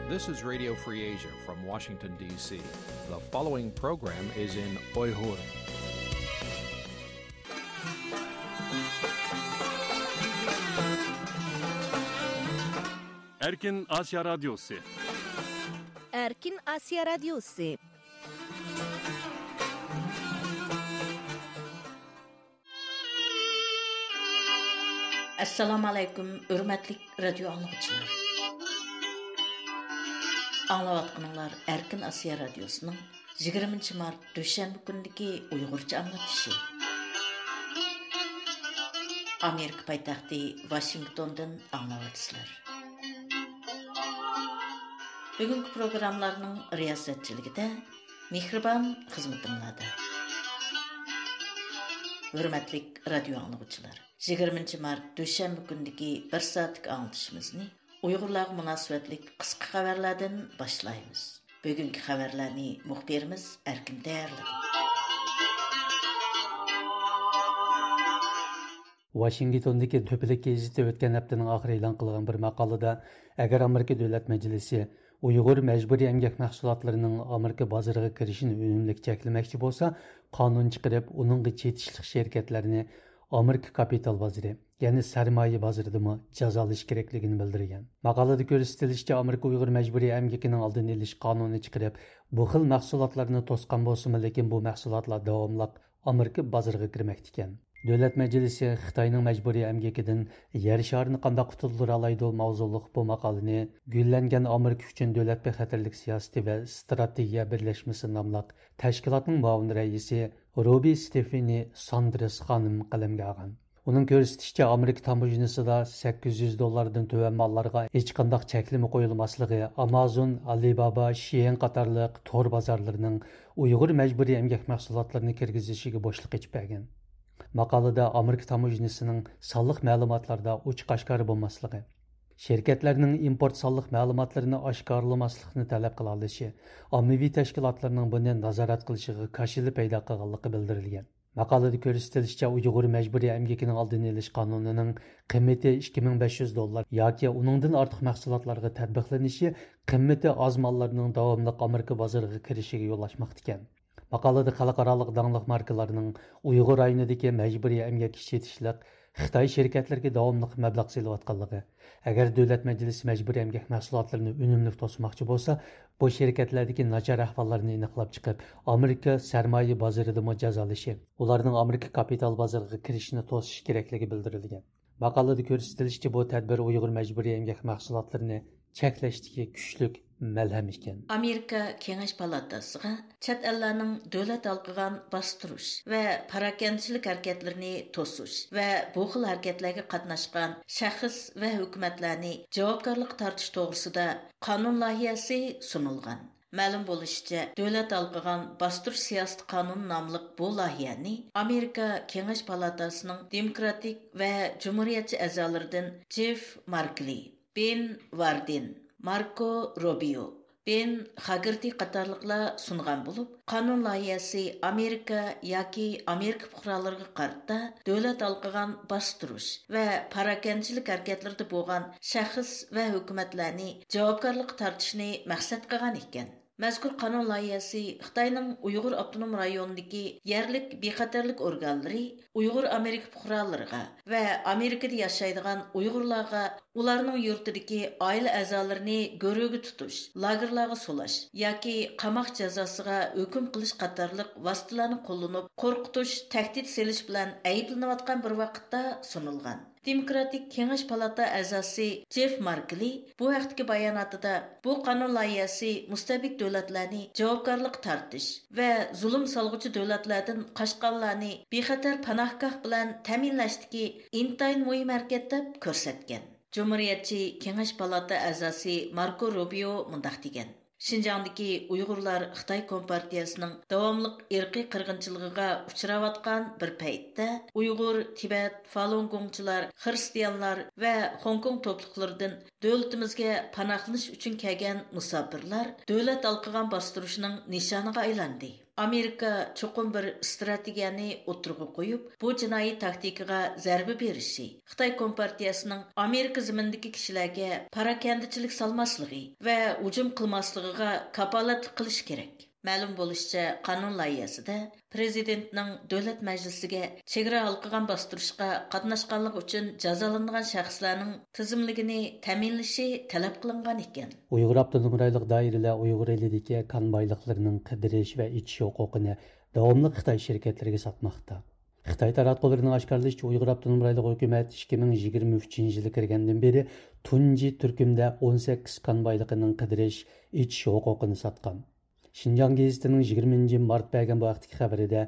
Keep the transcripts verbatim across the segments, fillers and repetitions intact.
This is Radio Free Asia from Washington, D C. The following program is in Uyghur. Erkin Asya Radyosu. Erkin Asya Radyosu. ئەسسالامۇ ئەلەيكۇم، ھۆرمەتلىك رادىيو ئاڭلىغۇچىلار. ئاڭلاۋاتقىنىڭلار ئەركىن ئاسىيا رادىيوسىنىڭ يىگىرمىنچى مارت دۈشەنبە كۈنىدىكى ئۇيغۇرچە ئاڭلىتىشى. ئامېرىكا پايتەختى ۋاشىنگتوندىن ئاڭلاۋاتىسىلەر. بۈگۈنكى پروگراممىلارنىڭ رىياسەتچىلىكىدە مېھرىبان خىزمىتىڭلاردا. ھۆرمەتلىك رادىيو ئاڭلىغۇچىلار، يىگىرمىنچى مارت دۈشەنبە كۈنىدىكى بىر سائەتلىك ئاڭلىتىشىمىزنى ئۇيغۇرلارغا مۇناسىۋەتلىك قىسقا خەۋەرلەردىن باشلايمىز. بۈگۈنكى خەۋەرلەرنى مۇخبىرىمىز ئەركىن تەييارلىدى. ۋاشىنگتوندىكى تۆپىلىك گېزىتى ئۆتكەن ھەپتىنىڭ ئاخىرى ئېلان قىلغان بىر ماقالىدە، ئەگەر ئامېرىكا دۆلەت مەجلىسى ئۇيغۇر مەجبۇرىي ئەمگەك مەھسۇلاتلىرىنىڭ ئامېرىكا بازىرىغا كىرىشىنى ئۈنۈملۈك چەكلىمەكچى بولسا، قانۇن چىقىرىپ، ئۇنىڭغا چېتىشلىق شىركەتلەرنى ئامېرىكا كاپىتال بازىرى، يەنى سەرمايە بازىرىدىمۇ جازالاش كېرەكلىكىنى بىلدۈرگەن. ماقالىدە كۆرسىتىلىشىچە، ئامېرىكا ئۇيغۇر مەجبۇرىي ئەمگىكىنىڭ ئالدىنى ئېلىش قانۇنى چىقىرىپ، بۇ خىل مەھسۇلاتلارنى توسقان بولسىمۇ، لېكىن بۇ مەھسۇلاتلار داۋاملىق ئامېرىكا بازىرىغا كىرمەكتىكەن. دۆلەت مەجلىسى خىتاينىڭ مەجبۇرىي ئەمگىكىدىن يەر شارىنى قانداق قۇتۇلدۇرالايدۇ ماۋزۇلۇق بۇ ماقالىنى گۈللەنگەن ئامېرىكا ئۈچۈن دۆلەت بىخەتەرلىك سىياسىتى ۋە ئىستراتېگىيە بىرلەشمىسى ناملىق تەشكىلاتنىڭ مۇئاۋىن رەئىسى روبى ستېفېنى ساندرېس خانىم قەلەمگە ئالغان. ئۇنىڭ كۆرسىتىشىچە، ئامېرىكا تاموژنىسىدا سەككىز يۈز دوللاردىن تۆۋەن ماللارغا ھېچقانداق چەكلىمە قويۇلماسلىقى ئامازون، ئالىبابا، شيېن قاتارلىق تور بازارلىرىنىڭ ئۇيغۇر مەجبۇرىي ئەمگەك مەھسۇلاتلىرىنى كىرگۈزۈشىگە بوشلۇق ئېچىپ بەرگەن. ماقالىدە ئامېرىكا تاموژنىسىنىڭ سانلىق مەلۇماتلاردا ئوچۇق ئاشكارا بولماسلىقى، شىركەتلەرنىڭ ئىمپورت سانلىق مەلۇماتلىرىنى ئاشكارىلىماسلىقنى تەلەپ قىلالىشى، ئاممىۋى تەشكىلاتلارنىڭ بۇنى نازارەت قىلىشىغا كاشىلا پەيدا قىلغانلىقى بىلدۈرۈلگەن. ماقالىدە كۆرسىتىلىشىچە، ئۇيغۇر مەجبۇرىي ئەمگىكىنىڭ ئالدىنى ئېلىش قانۇنىنىڭ قىممىتى ئىككى مىڭ بەش يۈز دوللار ياكى ئۇنىڭدىن ئارتۇق مەھسۇلاتلارغا تەتبىقلىنىشى قىممىتى ئاز ماللارنىڭ داۋاملىق ئامېرىكا بازىرىغا كىرىشىگە يول ئاچماقتىكەن. ماقالىدە خەلقئارالىق داڭلىق ماركىلارنىڭ ئۇيغۇر رايونىدىكى مەجبۇرىي ئەمگەك ئىشلىتىشلىق خىتاي شىركەتلىرىگە داۋاملىق مەبلەغ سېلىۋاتقانلىقى، ئەگەر دۆلەت مەجلىسى مەجبۇرىي ئەمگەك مەھسۇلاتلىرىنى ئۈنۈملۈك توسماقچى بولسا، بۇ شىركەتلەردىكى ناچار ئەھۋاللارنى ئېنىقلاپ چىقىپ، ئامېرىكا سەرمايە بازىرىدىمۇ جازالىشى، ئۇلارنىڭ ئامېرىكا كاپىتال بازىرىغا كىرىشىنى توسۇش كېرەكلىكى بىلدۈرۈلگەن. ماقالىدە كۆرسىتىلىشىچە، بۇ تەدبىر ئۇيغۇر مەجبۇرىي ئەمگەك مەھسۇلاتلىرىنى چەكلەشتىكى كۈچلۈك مەلھەم ئىكەن. ئامېرىكا كېڭەش پالاتاسىغا چەت ئەللەرنىڭ دۆلەت ھالقىغان باستۇرۇش ۋە پاراكەندىچىلىك ھەرىكەتلىرىنى توسۇش ۋە بۇ خىل ھەرىكەتلەرگە قاتناشقان شەخس ۋە ھۆكۈمەتلەرنى جاۋابكارلىققا تارتىش توغرىسىدا قانۇن لايىھەسى سۇنۇلغان. مەلۇم بولۇشىچە، دۆلەت ھالقىغان باستۇرۇش سىياسىتى قانۇنى ناملىق بۇ لايىھەنى ئامېرىكا كېڭەش پالاتاسىنىڭ دېموكراتىك ۋە جۇمھۇرىيەتچى ئەزالىرىدىن جېف ماركلى، بېن ۋاردېن، ماركو روبىيو، بېن خاگېرتى قاتارلىقلار سۇنغان بولۇپ، قانۇن لايىھەسى ئامېرىكا ياكى ئامېرىكا پۇقرالىرىغا قارىتا دۆلەت ھالقىغان باستۇرۇش ۋە پاراكەندىچىلىك ھەرىكەتلىرىدە بولغان شەخس ۋە ھۆكۈمەتلەرنى جاۋابكارلىققا تارتىشنى مەقسەت قىلغان ئىكەن. مەزكۇر قانۇن لايىھەسى خىتاينىڭ ئۇيغۇر ئاپتونوم رايونىدىكى يەرلىك بىخەتەرلىك ئورگانلىرى ئۇيغۇر ئامېرىكا پۇقرالىرىغا ۋە ئامېرىكىدا ياشايدىغان ئۇيغۇرلارغا ئۇلارنىڭ يۇرتىدىكى ئائىلە ئەزالىرىنى گۆرۈگە تۇتۇش، لاگېرلارغا سولاش ياكى قاماق جازاسىغا ھۆكۈم قىلىش قاتارلىق ۋاسىتىلەرنى قوللىنىپ، قورقۇتۇش، تەھدىت سېلىش بىلەن ئەيىبلىنىۋاتقان بىر ۋاقىتتا سۇنۇلغان. دېموكراتىك كېڭەش پالاتا ئەزاسى جېف ماركلى بۇ ھەقتىكى باياناتىدا، بۇ قانۇن لايىھەسى مۇستەبىت دۆلەتلەرنى جاۋابكارلىققا تارتىش ۋە زۇلۇم سالغۇچى دۆلەتلەردىن قاچقانلارنى بىخەتەر پاناھگاھ بىلەن تەمىنلەشتىكى ئىنتايىن مۇھىم ھەرىكەت دەپ كۆرسەتكەن. جۇمھۇرىيەتچى كېڭەش پالاتا ئەزاسى ماركو روبىيو مۇنداق دېگەن: شىنجاڭدىكى ئۇيغۇرلار خىتاي كومپارتىيەسىنىڭ داۋاملىق ئىرقىي قىرغىنچىلىقىغا ئۇچراۋاتقان بىر پەيتتە، ئۇيغۇر، تىبەت، فالۇنگوڭچىلار، خىرىستىيانلار ۋە خوڭكوڭ توپلۇقلىرىدىن دۆلىتىمىزگە پاناھلىنىش ئۈچۈن كەلگەن مۇساپىرلار دۆلەت ھالقىغان باستۇرۇشنىڭ نىشانىغا ئايلاندى. ئامېرىكا چوقۇم بىر ئىستراتېگىيەنى ئوتتۇرىغا قويۇپ، بۇ جىنايى تاكتىكىغا زەربە بېرىشى، خىتاي كومپارتىيەسىنىڭ ئامېرىكا زېمىنىدىكى كىشىلەرگە پاراكەندىچىلىك سالماسلىقى ۋە ھۇجۇم قىلماسلىقىغا كاپالەتلىك قىلىشى كېرەك. مەلۇم بولۇشىچە، قانۇن لايىھەسىدە پىرېزىدېنتنىڭ دۆلەت مەجلىسىگە چېگرا ھالقىغان باستۇرۇشقا قاتناشقانلىقى ئۈچۈن جازالىنىدىغان شەخسلەرنىڭ تىزىملىكىنى تەمىنلىشى تەلەپ قىلىنغان ئىكەن. ئۇيغۇر ئاپتونوم رايونلۇق دائىرىلەر ئۇيغۇر ئېلىدىكى كان بايلىقلىرىنىڭ قىدىرىش ۋە ئېچىش ھوقۇقىنى داۋاملىق خىتاي شىركەتلىرىگە ساتماقتا. خىتاي تاراتقۇلىرىنىڭ ئاشكارىلىشىچە، ئۇيغۇر ئاپتونوم رايونلۇق ھۆكۈمەت ئىككى مىڭ يىگىرمە ئۈچىنچى يىلى كىرگەندىن بېرى تۇنجى تۈركۈمدە ئون سەككىز كان بايلىقىنىڭ قىدىرىش، ئېچىش ھوقۇقىنى ساتقان. شىنجاڭ گېزىتىنىڭ يىگىرمىنچى مارت بەرگەن بۇ ھەقتىكى خەۋىرىدە،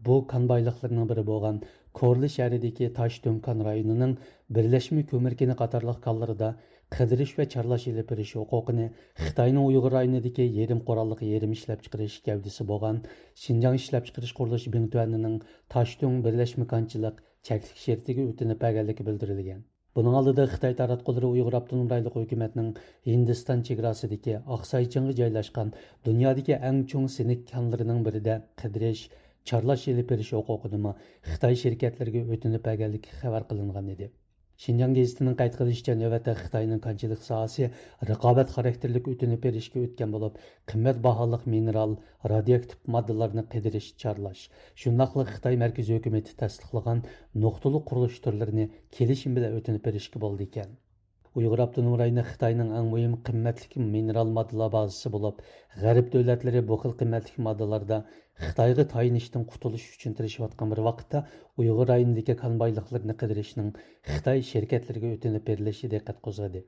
بۇ كان بايلىقلىرىنىڭ بىرى بولغان كورلا شەھىرىدىكى تاشتۆڭ كان رايونىنىڭ بىرلەشمە كۆمۈر كېنى قاتارلىق كانلىرىدا قىدىرىش ۋە چارلاش ئېلىپ بېرىش ھوقۇقىنى خىتاينىڭ ئۇيغۇر رايونىدىكى يېرىم قوراللىق يېرىم ئىشلەپچىقىرىش گەۋدىسى بولغان شىنجاڭ ئىشلەپچىقىرىش قۇرۇلۇشى بىڭتۈەنىنىڭ تاشتۆڭ بىرلەشمە كانچىلىق چەكلىك شىركىتىگە ئۆتۈنۈپ بەرگەنلىكى بىلدۈرۈلگەن. بۇنىڭ ئالدىدا خىتاي تاراتقۇلىرى ئۇيغۇر ئاپتونوم رايونلۇق ھۆكۈمەتنىڭ ھىندىستان چېگراسىدىكى ئاقساي چىڭىغا جايلاشقان دۇنيادىكى ئەڭ چوڭ سېنىك كانلىرىنىڭ بىرىدە قىدىرىش، چارلاش ئېلىپ بېرىش ھوقۇقىنىمۇ خىتاي شىركەتلىرىگە ئۆتۈنۈپ بەرگەنلىكى خەۋەر قىلىنغان ئىدى. شىنجاڭ گېزىتىنىڭ قەيت قىلىشىچە، نۆۋەتتە خىتاينىڭ كانچىلىق ساھەسى رىقابەت خاراكتېرلىك ئۆتۈنۈپ بېرىشكە ئۆتكەن بولۇپ، قىممەت باھالىق مىنېرال، رادىيوئاكتىپ ماددىلارنى قىدىرىش، چارلاش، شۇنداقلا خىتاي مەركىزىي ھۆكۈمىتى تەستىقلىغان نۇقتىلىق قۇرۇلۇش تۈرلىرىنى كېلىشىم بىلەن ئۆتۈنۈپ بېرىشكە بولىدىكەن. ئۇيغۇر ئاپتونوم رايونى خىتاينىڭ ئەڭ مۇھىم قىممەتلىك مىنېرال ماددىلار بازىسى بولۇپ، غەرب دۆلەتلىرى بۇ خىل قىممەتلىك ماددىلاردا خىتايغا تايىنىشتىن قۇتۇلۇش ئۈچۈن تىرىشىۋاتقان بىر ۋاقىتتا، ئۇيغۇر رايونىدىكى كان بايلىقلىرىنى قىدىرىشنىڭ خىتاي شىركەتلىرىگە ئۆتۈنۈپ بېرىلىشى دىققەت قوزغىدى.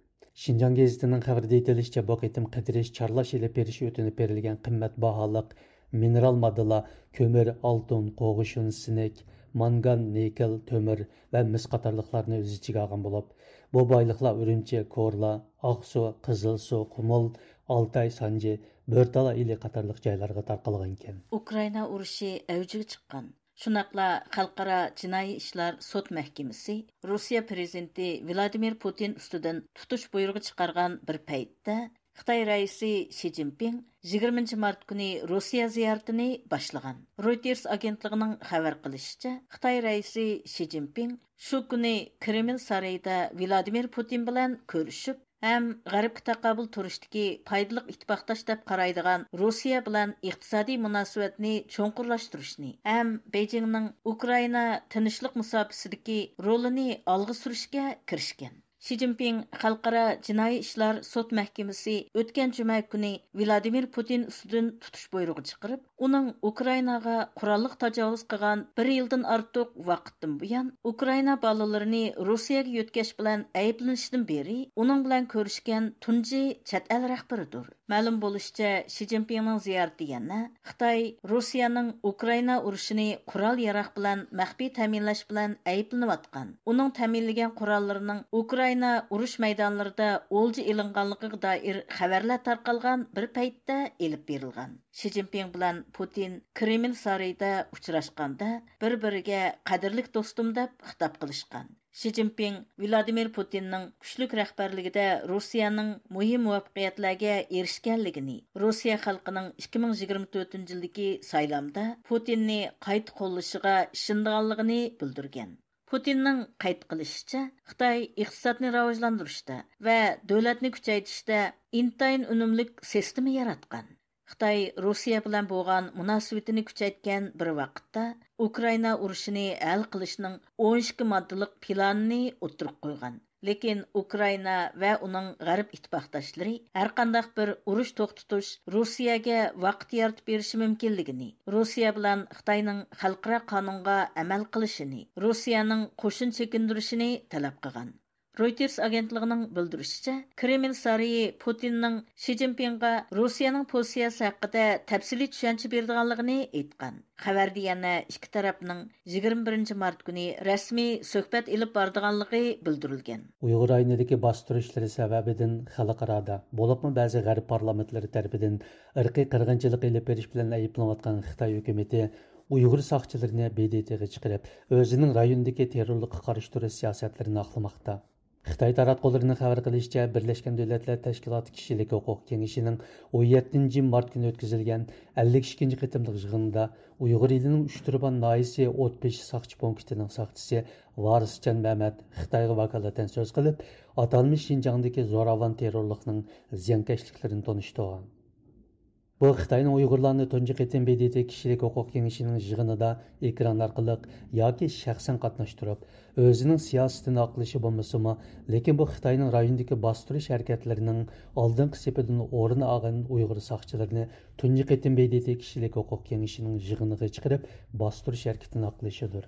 شىنجاڭ گېزىتىنىڭ خەۋىرىدە ئېيتىلىشىچە، بۇ قېتىم قىدىرىش، چارلاش ئېلىپ بېرىش ئۆتۈنۈپ بېرىلگەن قىممەت باھالىق مىنېرال ماددىلار كۆمۈر، ئالتۇن، قوغۇشۇن، سىنك، مانگان، نىكېل، تۆمۈر ۋە مىس قاتارلىقلارنى ئۆز ئىچىگە ئالغان بولۇپ، بۇ بايلىقلار ئۈرۈمچى، كورلا، ئاقسۇ، قىزىلسۇ، قۇمۇل، ئالتاي، سانجى، بۆرتالا ئېلى قاتارلىق جايلارغا تارقالغانىكەن. ئۇكرائىنا ئۇرۇشى ئەۋجىگە چىققان. شۇنداقلا خەلقئارا جىنايى ئىشلار سوت مەھكىمىسى روسىيە پىرېزىدېنتى ۋلادىمىر پۇتىن ئۈستىدىن تۇتۇش بۇيرۇغى چىقارغان بىر پەيتتە، خىتاي رەئىسى شى جىنپىڭ يىگىرمىنچى مارت كۈنى روسىيە زىيارىتىنى باشلىغان. رويتېرس ئاگېنتلىقىنىڭ خەۋەر قىلىشىچە، خىتاي رەئىسى شى جىنپىڭ شۇ كۈنى كرېمل سارىيىدا ۋلادىمىر پۇتىن بىلەن كۆرۈشۈپ، ھەم غەربكە تاقابىل تۇرۇشتىكى پايدىلىق ئىتتىپاقداش دەپ قارايدىغان روسىيە بىلەن ئىقتىسادىي مۇناسىۋەتنى چوڭقۇرلاشتۇرۇشنى ھەم بېيجىڭنىڭ ئۇكرائىنا تىنچلىق مۇساپىسىدىكى رولىنى ئالغا سۈرۈشكە كىرىشكەن. شى جىنپىڭ خەلقئارا جىنايى ئىشلار سوت مەھكىمىسى ئۆتكەن جۈمە كۈنى ۋلادىمىر پۇتىن ئۈستىدىن تۇتۇش بۇيرۇغى چىقىرىپ، ئۇنىڭ ئۇكرائىناغا قوراللىق تاجاۋۇز قىلغان بىر يىلدىن ئارتۇق ۋاقىتتىن بۇيان ئۇكرائىنا بالىلىرىنى روسىيەگە يۆتكەش بىلەن ئەيىبلىنىشىدىن بېرى ئۇنىڭ بىلەن كۆرۈشكەن تۇنجى چەت ئەل رەھبىرىدۇر. مەلۇم بولۇشىچە، شى جىنپىڭنىڭ زىيارىتى يەنە خىتاي روسىيەنىڭ ئۇكرائىنا ئۇرۇشىنى قورال-ياراغ بىلەن مەخپىي تەمىنلەش بىلەن ئەيىبلىنىۋاتقان، ئۇنىڭ تەمىنلىگەن قوراللىرىنىڭ ئۇكرائىنا ئۇرۇش مەيدانلىرىدا ئولجا ئېلىنغانلىقىغا دائىر خەۋەرلەر تارقالغان بىر پەيتتە ئېلىپ بېرىلغان. شى جىنپىڭ بىلەن پۇتىن كرېمل سارىيىدا ئۇچراشقاندا، بىر-بىرىگە قەدىرلىك دوستۇم دەپ خىتاب قىلىشقان. شى جىنپىڭ ۋلادىمىر پۇتىننىڭ كۈچلۈك رەھبەرلىكىدە روسىيەنىڭ مۇھىم مۇۋەپپەقىيەتلەرگە ئېرىشكەنلىكىنى، روسىيە خەلقىنىڭ ئىككى مىڭ يىگىرمە تۆتىنچى يىلدىكى سايلامدا پۇتىننى قايتا قوللىشىغا ئىشىنىدىغانلىقىنى بىلدۈرگەن. پۇتىننىڭ قەيت قىلىشىچە، خىتاي ئىقتىسادنى راۋاجلاندۇرۇشتا ۋە دۆلەتنى كۈچەيتىشتە ئىنتايىن ئۈنۈملۈك سىستېما ياراتقان. خىتاي روسىيە بىلەن بولغان مۇناسىۋىتىنى كۈچەيتكەن بىر ۋاقىتتا، ئۇكرائىنا ئۇرۇشىنى ھەل قىلىشنىڭ ئون ئىككى ماددىلىق پىلانىنى ئوتتۇرىغا قويغان. لېكىن ئۇكرائىنا ۋە ئۇنىڭ غەرب ئىتتىپاقداشلىرى ھەرقانداق بىر ئۇرۇش توختىتىش روسىيەگە ۋاقىت يارىتىپ بېرىشى مۇمكىنلىكىنى، روسىيە بىلەن خىتاينىڭ خەلقئارا قانۇنغا ئەمەل قىلىشىنى، روسىيەنىڭ قوشۇن چېكىندۈرۈشىنى تەلەپ قىلغان. رويتېرس ئاگېنتلىقىنىڭ بىلدۈرۈشىچە، كرېمل سارىيى پۇتىننىڭ شى جىنپىڭغا روسىيەنىڭ پوزىتسىيەسى ھەققىدە تەپسىلىي چۈشەنچە بېرىدىغانلىقىنى ئېيتقان. خەۋەردە يەنە ئىككى تەرەپنىڭ يىگىرمە بىرىنچى مارت كۈنى رەسمىي سۆھبەت ئېلىپ بارىدىغانلىقى بىلدۈرۈلگەن. ئۇيغۇر رايونىدىكى باستۇرۇشلىرى سەۋەبىدىن خەلقئارادا، بولۇپمۇ بەزى غەرب پارلامېنتلىرى تەرىپىدىن ئىرقىي قىرغىنچىلىق ئېلىپ بېرىش بىلەن ئەيىبلىنىۋاتقان خىتاي ھۆكۈمىتى ئۇيغۇر ساقچىلىرىنى ب د ت غا چىقىرىپ، ئۆزىنىڭ رايوندىكى تېررورلۇققا قارشى تۇرۇش سىياسەتلىرىنى ئاقلىماقتا. خىتاي تاراتقۇلىرىنىڭ خەۋەر قىلىشىچە، بىرلەشكەن دۆلەتلەر تەشكىلاتى كىشىلىك ھوقۇق كېڭىشىنىڭ ئون يەتتىنچى مارت كۈنى ئۆتكۈزۈلگەن ئەللىك ئىككىنچى قېتىملىق يىغىنىدا ئۇيغۇر ئېلىنىڭ ئۇچتۇرپان ناھىيەسى ئوتبېشى ساقچى پونكىتىنىڭ ساقچىسى ۋارىسجان مەمەت خىتايغا ۋاكالىتەن سۆز قىلىپ، ئاتالمىش شىنجاڭدىكى زوراۋان تېررورلۇقنىڭ زىيانكەشلىكلىرىنى تونۇشتۇرغان. بۇ خىتاينىڭ ئۇيغۇرلارنى تۇنجى قېتىم ب د ت كىشىلىك ھوقۇق كېڭىشىنىڭ يىغىنىدا ئېكران ئارقىلىق ياكى شەخسەن قاتناشتۇرۇپ، ئۆزىنىڭ سىياسىتىنى ئاقلىشى بولمىسىمۇ، لېكىن بۇ خىتاينىڭ رايوندىكى باستۇرۇش ھەرىكەتلىرىنىڭ ئالدىنقى سېپىدىن ئورۇن ئالغان ئۇيغۇر ساقچىلىرىنى تۇنجى قېتىم ب د ت كىشىلىك ھوقۇق كېڭىشىنىڭ يىغىنىغا چىقىرىپ، باستۇرۇش ھەرىكىتىنى ئاقلىشىدۇر.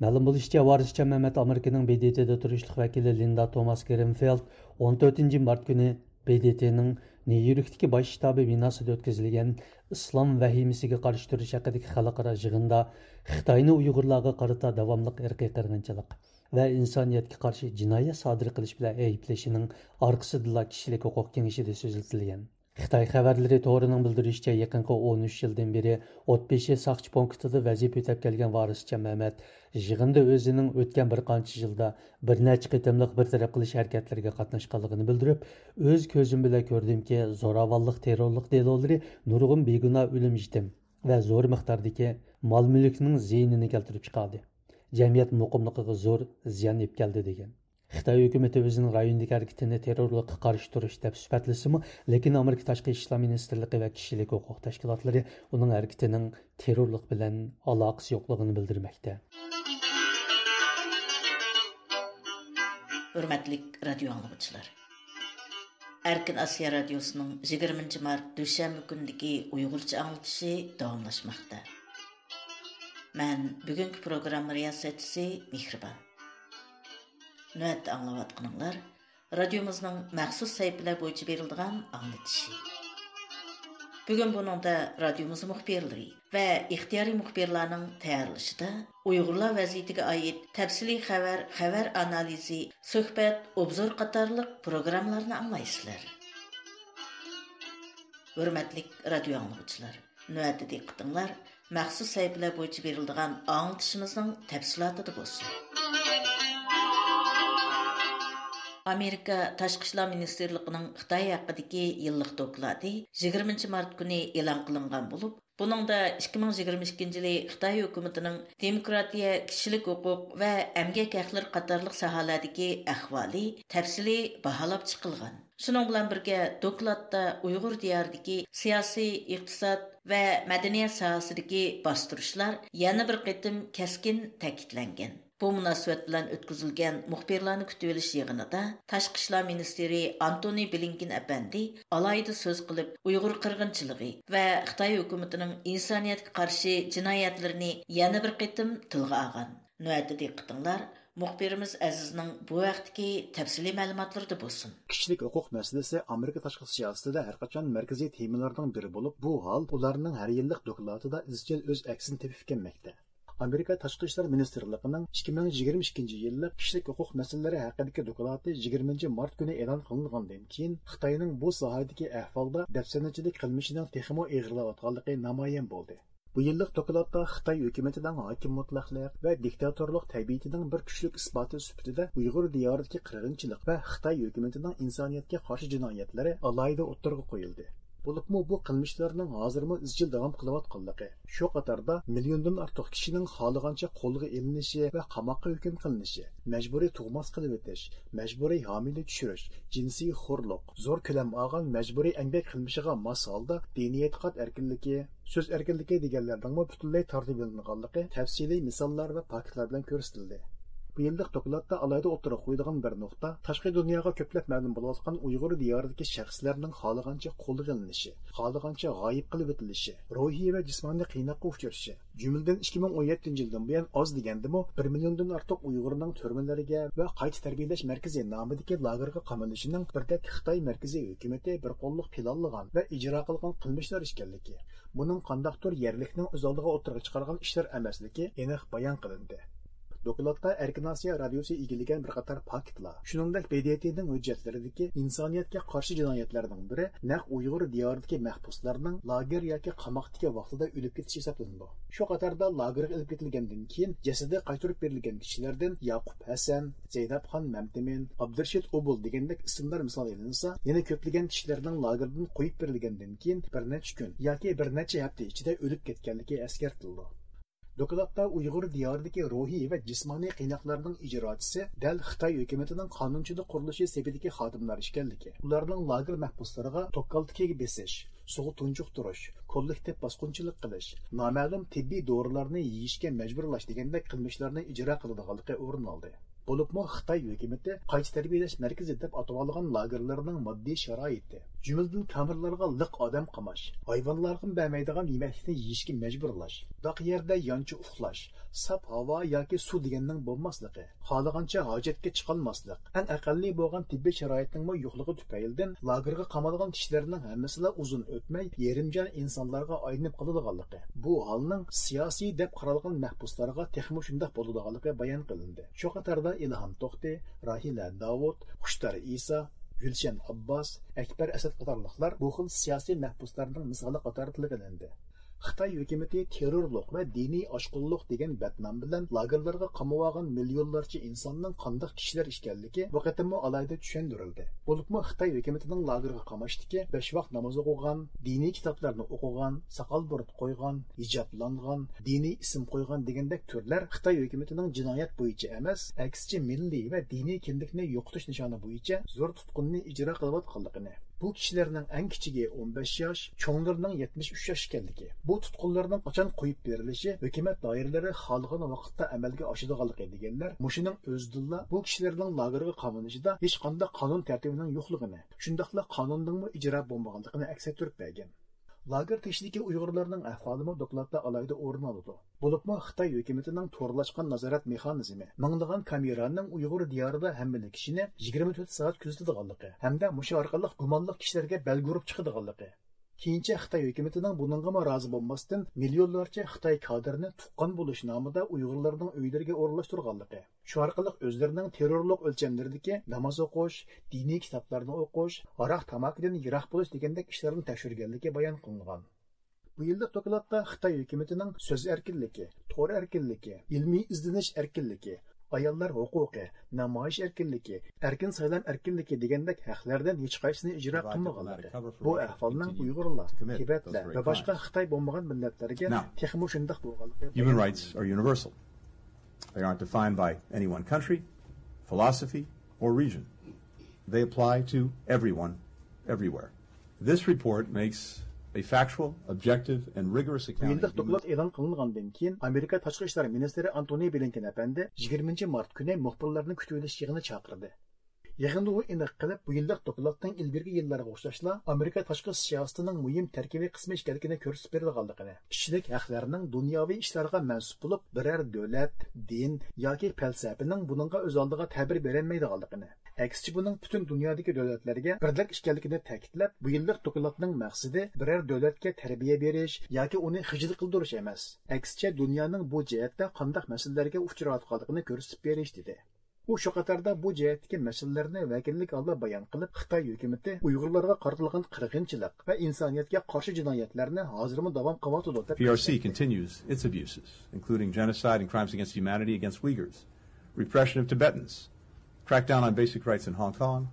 مەلۇم بولۇشىچە، ۋارىسجان مەمەت ئامېرىكىنىڭ ب د ت دا تۇرۇشلۇق ۋەكىلى لىندا توماس گرىنفېلد ئون تۆتىنچى مارت كۈنى ب د ت نىڭ نيۇ يوركتىكى باش شتابى بىناسىدا ئۆتكۈزۈلگەن ئىسلام ۋەھىمىسىگە قارشى تۇرۇش ھەققىدىكى خەلقئارا يىغىندا خىتاينى ئۇيغۇرلارغا قارىتا داۋاملىق ئىرقىي قىرغىنچىلىق ۋە ئىنسانىيەتكە قارشى جىنايەت سادىر قىلىش بىلەن ئەيىبلىشىنىڭ ئارقىسىدىلا كىشىلىك ھوقۇق كېڭىشىدە سۆزلىتىلگەن. خىتاي خەۋەرلىرى تورىنىڭ بىلدۈرۈشىچە، يېقىنقى ئون ئۈچ يىلدىن بېرى ئوتبېشى ساقچى پونكىتىدا ۋەزىپە ئۆتەپ كەلگەن ۋارىسجان مەمەت يىغىندا ئۆزىنىڭ ئۆتكەن بىر قانچە يىلدا بىر نەچچە قېتىملىق بىر تەرەپ قىلىش ھەرىكەتلىرىگە قاتناشقانلىقىنى بىلدۈرۈپ، ئۆز كۆزۈم بىلەن كۆردۈمكى، زوراۋانلىق، تېررورلۇق دېلولىرى نۇرغۇن بىگۇناھ ئۆلۈم يېتىم ۋە زور مىقداردىكى مال مۈلۈكنىڭ زىيىنىنى كەلتۈرۈپ چىقاردى. جەمئىيەت مۇقىملىقىغا زور زىيان ئېلىپ كەلدى، دېگەن. خىتاي ھۆكۈمىتى ئۆزىنىڭ رايوندىكى ھەرىكىتىنى تېررورلۇققا قارشى تۇرۇش دەپ سۈپەتلىسىمۇ، لېكىن ئامېرىكا تاشقى ئىشلار مىنىستىرلىقى ۋە كىشىلىك ھوقۇق تەشكىلاتلىرى ئۇنىڭ ھەرىكىتىنىڭ تېررورلۇق بىلەن ئالاقىسى يوقلۇقىنى بىلدۈرمەكتە. ھۆرمەتلىك رادىيو ئاڭلىغۇچىلار! ئەركىن ئاسىيا رادىيوسىنىڭ يىگىرمىنچى مارت دۈشەنبە كۈنىدىكى ئۇيغۇرچە ئاڭلىتىشى داۋاملاشماقتا. مەن بۈگۈنكى پروگرامما رىياسەتچىسى مېھرىبان. نۆۋەتتە ئاڭلاۋاتقىنىڭلار رادىيومىزنىڭ مەخسۇس سەھىپىلەر بويىچە بېرىلىدىغان ئاڭلىتىشى. بۈگۈن بۇنىڭدا رادىيومىز مۇخبىرلىرى ۋە ئىختىيارىي مۇخبىرلارنىڭ تەييارلىشىدا ئۇيغۇرلار ۋەزىيىتىگە ئائىت تەپسىلىي خەۋەر، خەۋەر ئانالىزى، سۆھبەت، ئوبزور قاتارلىق پروگراممىلارنى ئاڭلايسىلەر. ھۆرمەتلىك رادىيو ئاڭلىغۇچىلار! نۆۋەتتە دىققىتىڭلار مەخسۇس سەھىپىلەر بويىچە بېرىلىدىغان ئاڭلىتىشىمىزنىڭ تەپسىلاتىدا بولسۇن. ئامېرىكا تاشقى ئىشلار مىنىستىرلىقىنىڭ خىتاي ھەققىدىكى يىللىق دوكلاتى يىگىرمىنچى مارت كۈنى ئېلان قىلىنغان بولۇپ، بۇنىڭدا ئىككى مىڭ يىگىرمە ئىككىنچى يىلى خىتاي ھۆكۈمىتىنىڭ دېموكراتىيە، كىشىلىك ھوقۇق ۋە ئەمگەك ھەقلىرى قاتارلىق ساھەلەردىكى ئەھۋالى تەپسىلىي باھالاپ چىقىلغان. شۇنىڭ بىلەن بىرگە، دوكلاتتا ئۇيغۇر دىيارىدىكى سىياسىي، ئىقتىساد ۋە مەدەنىيەت ساھەسىدىكى باستۇرۇشلار يەنە بىر قېتىم كەسكىن تەكىتلەنگەن. بۇ مۇناسىۋەت بىلەن ئۆتكۈزۈلگەن مۇخبىرلارنى كۈتۈۋېلىش يىغىنىدا تاشقى ئىشلار مىنىستىرى ئانتونى بلىنكېن ئەپەندى ئالاھىدە سۆز قىلىپ، ئۇيغۇر قىرغىنچىلىقى ۋە خىتاي ھۆكۈمىتىنىڭ ئىنسانىيەتكە قارشى جىنايەتلىرىنى يەنە بىر قېتىم تىلغا ئالغان. نۆۋەتتە دىققىتىڭلار مۇخبىرىمىز ئەزىزنىڭ بۇ ھەقتىكى تەپسىلىي مەلۇماتلىرىدا بولسۇن. كىشىلىك ھوقۇق مەسىلىسى ئامېرىكا تاشقى سىياسىتىدە ھەرقاچان مەركىزىي تېمىلارنىڭ بىرى بولۇپ، بۇ ھال ئۇلارنىڭ ھەر يىللىق دوكلاتىدا ئىزچىل ئۆز ئەكسىنى تېپىپ كەلمەكتە. ئامېرىكا تاشقى ئىشلار مىنىستىرلىقىنىڭ ئىككى مىڭ يىگىرمە ئىككىنچى يىللىق كىشىلىك ھوقۇق مەسىلىلىرى ھەققىدىكى دوكلاتى يىگىرمىنچى مارت كۈنى ئېلان قىلىنغاندىن كېيىن، خىتاينىڭ بۇ ساھەدىكى ئەھۋالدا دەپسەندىچىلىك قىلمىشىنىڭ تېخىمۇ ئېغىرلاۋاتقانلىقى نامايان بولدى. بۇ يىللىق دوكلاتتا خىتاي ھۆكۈمىتىنىڭ ھاكىم مۇتلەقلىق ۋە دىكتاتورلۇق تەبىئىتىنىڭ بىر كۈچلۈك ئىسپاتى سۈپىتىدە ئۇيغۇر دىيارىدىكى قىرغىنچىلىق ۋە خىتاي ھۆكۈمىتىنىڭ ئىنسانىيەتكە قارشى جىنايەتلىرى ئالاھىدە ئوتتۇرىغا قويۇلدى. بولۇپمۇ بۇ قىلمىشلارنىڭ ھازىرمۇ ئىزچىل داۋام قىلىۋاتقانلىقى، شۇ قاتاردا مىليوندىن ئارتۇق كىشىنىڭ خالىغانچە قولغا ئېلىنىشى ۋە قاماققا ھۆكۈم قىلىنىشى، مەجبۇرىي تۇغماس قىلىۋېتىش، مەجبۇرىي ھامىلە چۈشۈرۈش، جىنسىي خورلۇق، زور كۆلەم ئالغان مەجبۇرىي ئەمگەك قىلمىشىغا ماس ھالدا دىنىي ئېتىقاد ئەركىنلىكى، سۆز ئەركىنلىكى دېگەنلەرنىڭمۇ پۈتۈنلەي تارتىۋېلىنغانلىقى تەپسىلىي مىساللار ۋە پاكىتلار بىلەن كۆرسىتىلدى. بۇ يىللىق دوكلاتتا ئالاھىدە ئوتتۇرىغا قويىدىغان بىر نۇقتا، تاشقى دۇنياغا كۆپلەپ مەلۇم بولۇۋاتقان ئۇيغۇر دىيارىدىكى شەخسلەرنىڭ خالىغانچە قولغا ئېلىنىشى، خالىغانچە غايىب قىلىۋېتىلىشى، روھىي ۋە جىسمانىي قىيناققا ئۇچرىشى، جۈملىدىن ئىككى مىڭ ئون يەتتىنچى يىلدىن بۇيان ئاز دېگەندىمۇ بىر مىليوندىن ئارتۇق ئۇيغۇرنىڭ تۈرمىلەرگە ۋە قايتا تەربىيەلەش مەركىزى نامىدىكى لاگېرغا قامىلىشىنىڭ بىردەك خىتاي مەركىزىي ھۆكۈمىتى بىر قوللۇق پىلانلىغان ۋە ئىجرا قىلغان قىلمىشلار ئىكەنلىكى، بۇنىڭ قانداقتۇر يەرلىكنىڭ ئۆز ئالدىغا ئوتتۇرىغا چىقارغان ئىشلار ئەمەسلىكى ئېنىق بايان قىلىندى. دوكلاتتا ئەركىن ئاسىيا رادىيوسى ئىگىلىگەن بىر قاتار پاكىتلار، شۇنىڭدەك ب د ت نىڭ ھۆججەتلىرىدىكى ئىنسانىيەتكە قارشى جىنايەتلەرنىڭ بىرى نەق ئۇيغۇر دىيارىدىكى مەھبۇسلارنىڭ لاگېر ياكى قاماقتىكى ۋاقتىدا ئۆلۈپ كېتىشى ھېسابلىنىدۇ. شۇ قاتاردا لاگېرغا ئېلىپ كېتىلگەندىن كېيىن جەسىتى قايتۇرۇپ بېرىلگەن كىشىلەردىن ياقۇپ ھەسەن، زەينەپخان مەمتىمىن، ئابدۇرېشىت ئوبۇل دېگەندەك ئىسىملار مىسال ئېلىنسا، يەنە كۆپلىگەن كىشىلەرنىڭ لاگېردىن قويۇپ بېرىلگەندىن كېيىن بىر نەچچە كۈن ياكى بىر نەچچە ھەپتە ئىچىدە ئۆلۈپ كەتكەنلىكى ئەسكەرتىلىدۇ. دوكلاتتا ئۇيغۇر دىيارىدىكى روھىي ۋە جىسمانىي قىيناقلارنىڭ ئىجراچىسى دەل خىتاي ھۆكۈمىتىنىڭ قانۇنچىلىق قۇرۇلۇشى سېپىدىكى خادىملار ئىكەنلىكى، ئۇلارنىڭ لاگېر مەھبۇسلىرىغا توكالتىكىگە بېسىش، سۇغا تۇنجۇقتۇرۇش، كوللېكتىپ باسقۇنچىلىق قىلىش، نامەلۇم تېببىي دورىلارنى يېيىشكە مەجبۇرلاش دېگەندەك قىلمىشلارنى ئىجرا قىلىدىغانلىقى ئورۇن ئالدى. بولۇپمۇ خىتاي ھۆكۈمىتى قايتا تەربىيەلەش مەركىزى دەپ ئاتىۋالغان لاگېرلارنىڭ ماددىي شارائىتى، جۈملىدىن كامېرلارغا لىق ئادەم قاماش، ھايۋانلارغىمۇ بەرمەيدىغان يېمەكلىكنى يېيىشكە مەجبۇرلاش، داق يەردە يانچە ئۇخلاش، ساپ ھاۋا ياكى سۇ دېگەننىڭ بولماسلىقى، خالىغانچە ھاجەتكە چىقالماسلىق، ئەڭ ئەقەللىي بولغان تېببىي شارائىتنىڭمۇ يوقلۇقى تۈپەيلىدىن لاگېرغا قامالغان كىشىلەرنىڭ ھەممىسىلا ئۇزۇن ئۆتمەي يېرىم جان ئىنسانلارغا ئايلىنىپ قالىدىغانلىقى، بۇ ھالنىڭ سىياسىي دەپ قارالغان مەھبۇسلارغا تېخىمۇ شۇنداق بولىدىغانلىقى بايان قىلىندى. شۇ قاتاردا ئىلھام توختى، راھىلە داۋۇت، خۇشتار ئىسا، گۈلشەن ئابباس، ئەكبەر ئەسەت قاتارلىقلار بۇ خىل سىياسىي مەھبۇسلارنىڭ مىسالى قاتارىدا تىلغا ئېلىندى. خىتاي ھۆكۈمىتى تېررورلۇق ۋە دىنىي ئاشقۇنلۇق دېگەن بەتنام بىلەن لاگېرلارغا قامىۋالغان مىليونلارچە ئىنساننىڭ قانداق كىشىلەر ئىكەنلىكى بۇ قېتىممۇ ئالاھىدە چۈشەندۈرۈلدى. بولۇپمۇ خىتاي ھۆكۈمىتىنىڭ لاگېرغا قاماشتىكى بەش ۋاق ناماز ئوقۇغان، دىنىي كىتابلارنى ئوقۇغان، ساقال بۇرۇت قويغان، ھىجابلانغان، دىنىي ئىسىم قويغان دېگەندەك تۈرلەر خىتاي ھۆكۈمىتىنىڭ جىنايەت بويىچە ئەمەس، ئەكسىچە مىللىي ۋە دىنىي كىملىكنى يوقىتىش نىشانى بويىچە زور تۇتقۇننى ئىجرا قىلىۋاتقانلىقىنى، بۇ كىشىلەرنىڭ ئەڭ كىچىكى ئون بەش ياش، چوڭلىرىنىڭ يەتمىش ئۈچ ياش ئىكەنلىكى، بۇ تۇتقۇنلارنىڭ قاچان قويۇپ بېرىلىشى ھۆكۈمەت دائىرىلىرى خالىغان ۋاقىتتا ئەمەلگە ئاشىدىغانلىقى دېگەنلەر مۇشۇنىڭ ئۆزىدىنلا بۇ كىشىلەرنىڭ لاگېرغا قامىلىشىدا ھېچقانداق قانۇن تەرتىپىنىڭ يوقلۇقىنى، شۇنداقلا قانۇندىنمۇ ئىجرا بولمىغانلىقىنى ئەكس ئەتتۈرۈپ بەرگەن. لاگېر تېشىدىكى ئۇيغۇرلارنىڭ ئەھۋالىمۇ دوكلاتتا ئالاھىدە ئورۇن ئالىدۇ. بولۇپمۇ خىتاي ھۆكۈمىتىنىڭ تورلاشقان نازارەت مېخانىزمى، مىڭلىغان كامېرانىڭ ئۇيغۇر دىيارىدا ھەممىلا كىشىنى يىگىرمە تۆت سائەت كۆزىتىدىغانلىقى ھەمدە مۇشۇ ئارقىلىق گۇمانلىق كىشىلەرگە بەلگە ئۇرۇپ چىقىدىغانلىقى، كېيىنچە خىتاي ھۆكۈمىتىنىڭ بۇنىڭغىمۇ رازى بولماستىن، مىليونلارچە خىتاي كادىرىنى تۇغقان بولۇش نامىدا ئۇيغۇرلارنىڭ ئۆيلىرىگە ئورۇنلاشتۇرغانلىقى، شۇ ئارقىلىق ئۆزلىرىنىڭ تېررورلۇق ئۆلچەملىرىدىكى ناماز ئوقۇش، دىنىي كىتابلارنى ئوقۇش، ھاراق تاماكىدىن يىراق بولۇش دېگەندەك ئىشلارنى تەكشۈرگەنلىكى بايان قىلىنغان. بۇ يىللىق دوكلاتتا خىتاي ھۆكۈمىتىنىڭ سۆز ئەركىنلىكى، تور ئەركىنلىكى، ئىلمىي ئىزدىنىش ئەركىنلىكى، ئاياللار ھوقۇقى، نامايىش ئەركىنلىكى، ئەركىن سايلام ئەركىنلىكى دېگەندەك ھەقلەردىن ھېچقايسىسىنى ئىجرا قىلمىغانلىقى، بۇ ئەھۋالنىڭ ئۇيغۇرلار، تىبەتلەر ۋە باشقا خىتاي بولمىغان مىللەتلەرگە تېخىمۇ شۇنداق بولغانلىقى بايان قىلىندى. Human rights are universal. They aren't defined by any one country, philosophy, or region. They apply to everyone, everywhere. This report makes a factual, objective, and rigorous بۇ account يىللىق of human دوكلات ئېلان قىلىنغاندىن كېيىن، ئامېرىكا تاشقى ئىشلار مىنىستىرى ئانتونى بلىنكېن ئەپەندى يىگىرمىنچى مارت كۈنى مۇخبىرلارنى كۈتۈۋېلىش يىغىنى چاقىردى. يىغىندا ئۇ ئېنىق قىلىپ، بۇ يىللىق دوكلاتنىڭ ئىلگىرىكى يىللارغا ئوخشاشلا ئامېرىكا تاشقى سىياسىتىنىڭ مۇھىم تەركىبىي قىسمى ئىكەنلىكىنى كۆرسىتىپ بېرىدىغانلىقىنى، كىشىلىك ھەقلەرنىڭ دۇنياۋى ئىشلارغا مەنسۇپ بولۇپ، بىرەر دۆلەت، دىن ياكى پەلسەپىنىڭ بۇنىڭغا ئۆز ئالدىغا تەبىر بېرەلمەيدىغانلىقىنى، ئەكسىچە بۇنىڭ پۈتۈن دۇنيادىكى دۆلەتلەرگە بىردەك ئىكەنلىكىنى تەكىتلەپ، بۇ يىللىق دوكلاتنىڭ مەقسىتى بىرەر دۆلەتكە تەربىيە بېرىش ياكى ئۇنى خىجىل قىلدۇرۇش ئەمەس، ئەكسىچە دۇنيانىڭ بۇ جەھەتتە قانداق مەسىلىلەرگە ئۇچراۋاتقانلىقىنى كۆرسىتىپ بېرىش، دېدى. ئۇ شۇ قاتاردا بۇ جەھەتتىكى مەسىلىلەرنى ۋەكىللىك ھالدا بايان قىلىپ، خىتاي ھۆكۈمىتى ئۇيغۇرلارغا قارىتىلغان قىرغىنچىلىق ۋە ئىنسانىيەتكە قارشى جىنايەتلەرنى ھازىرمۇ داۋام قىلىۋاتىدۇ، دەپ P R C continues its abuses, including genocide and crimes against humanity against Uyghurs, repression of Tibetans, crackdown on basic rights in Hong Kong,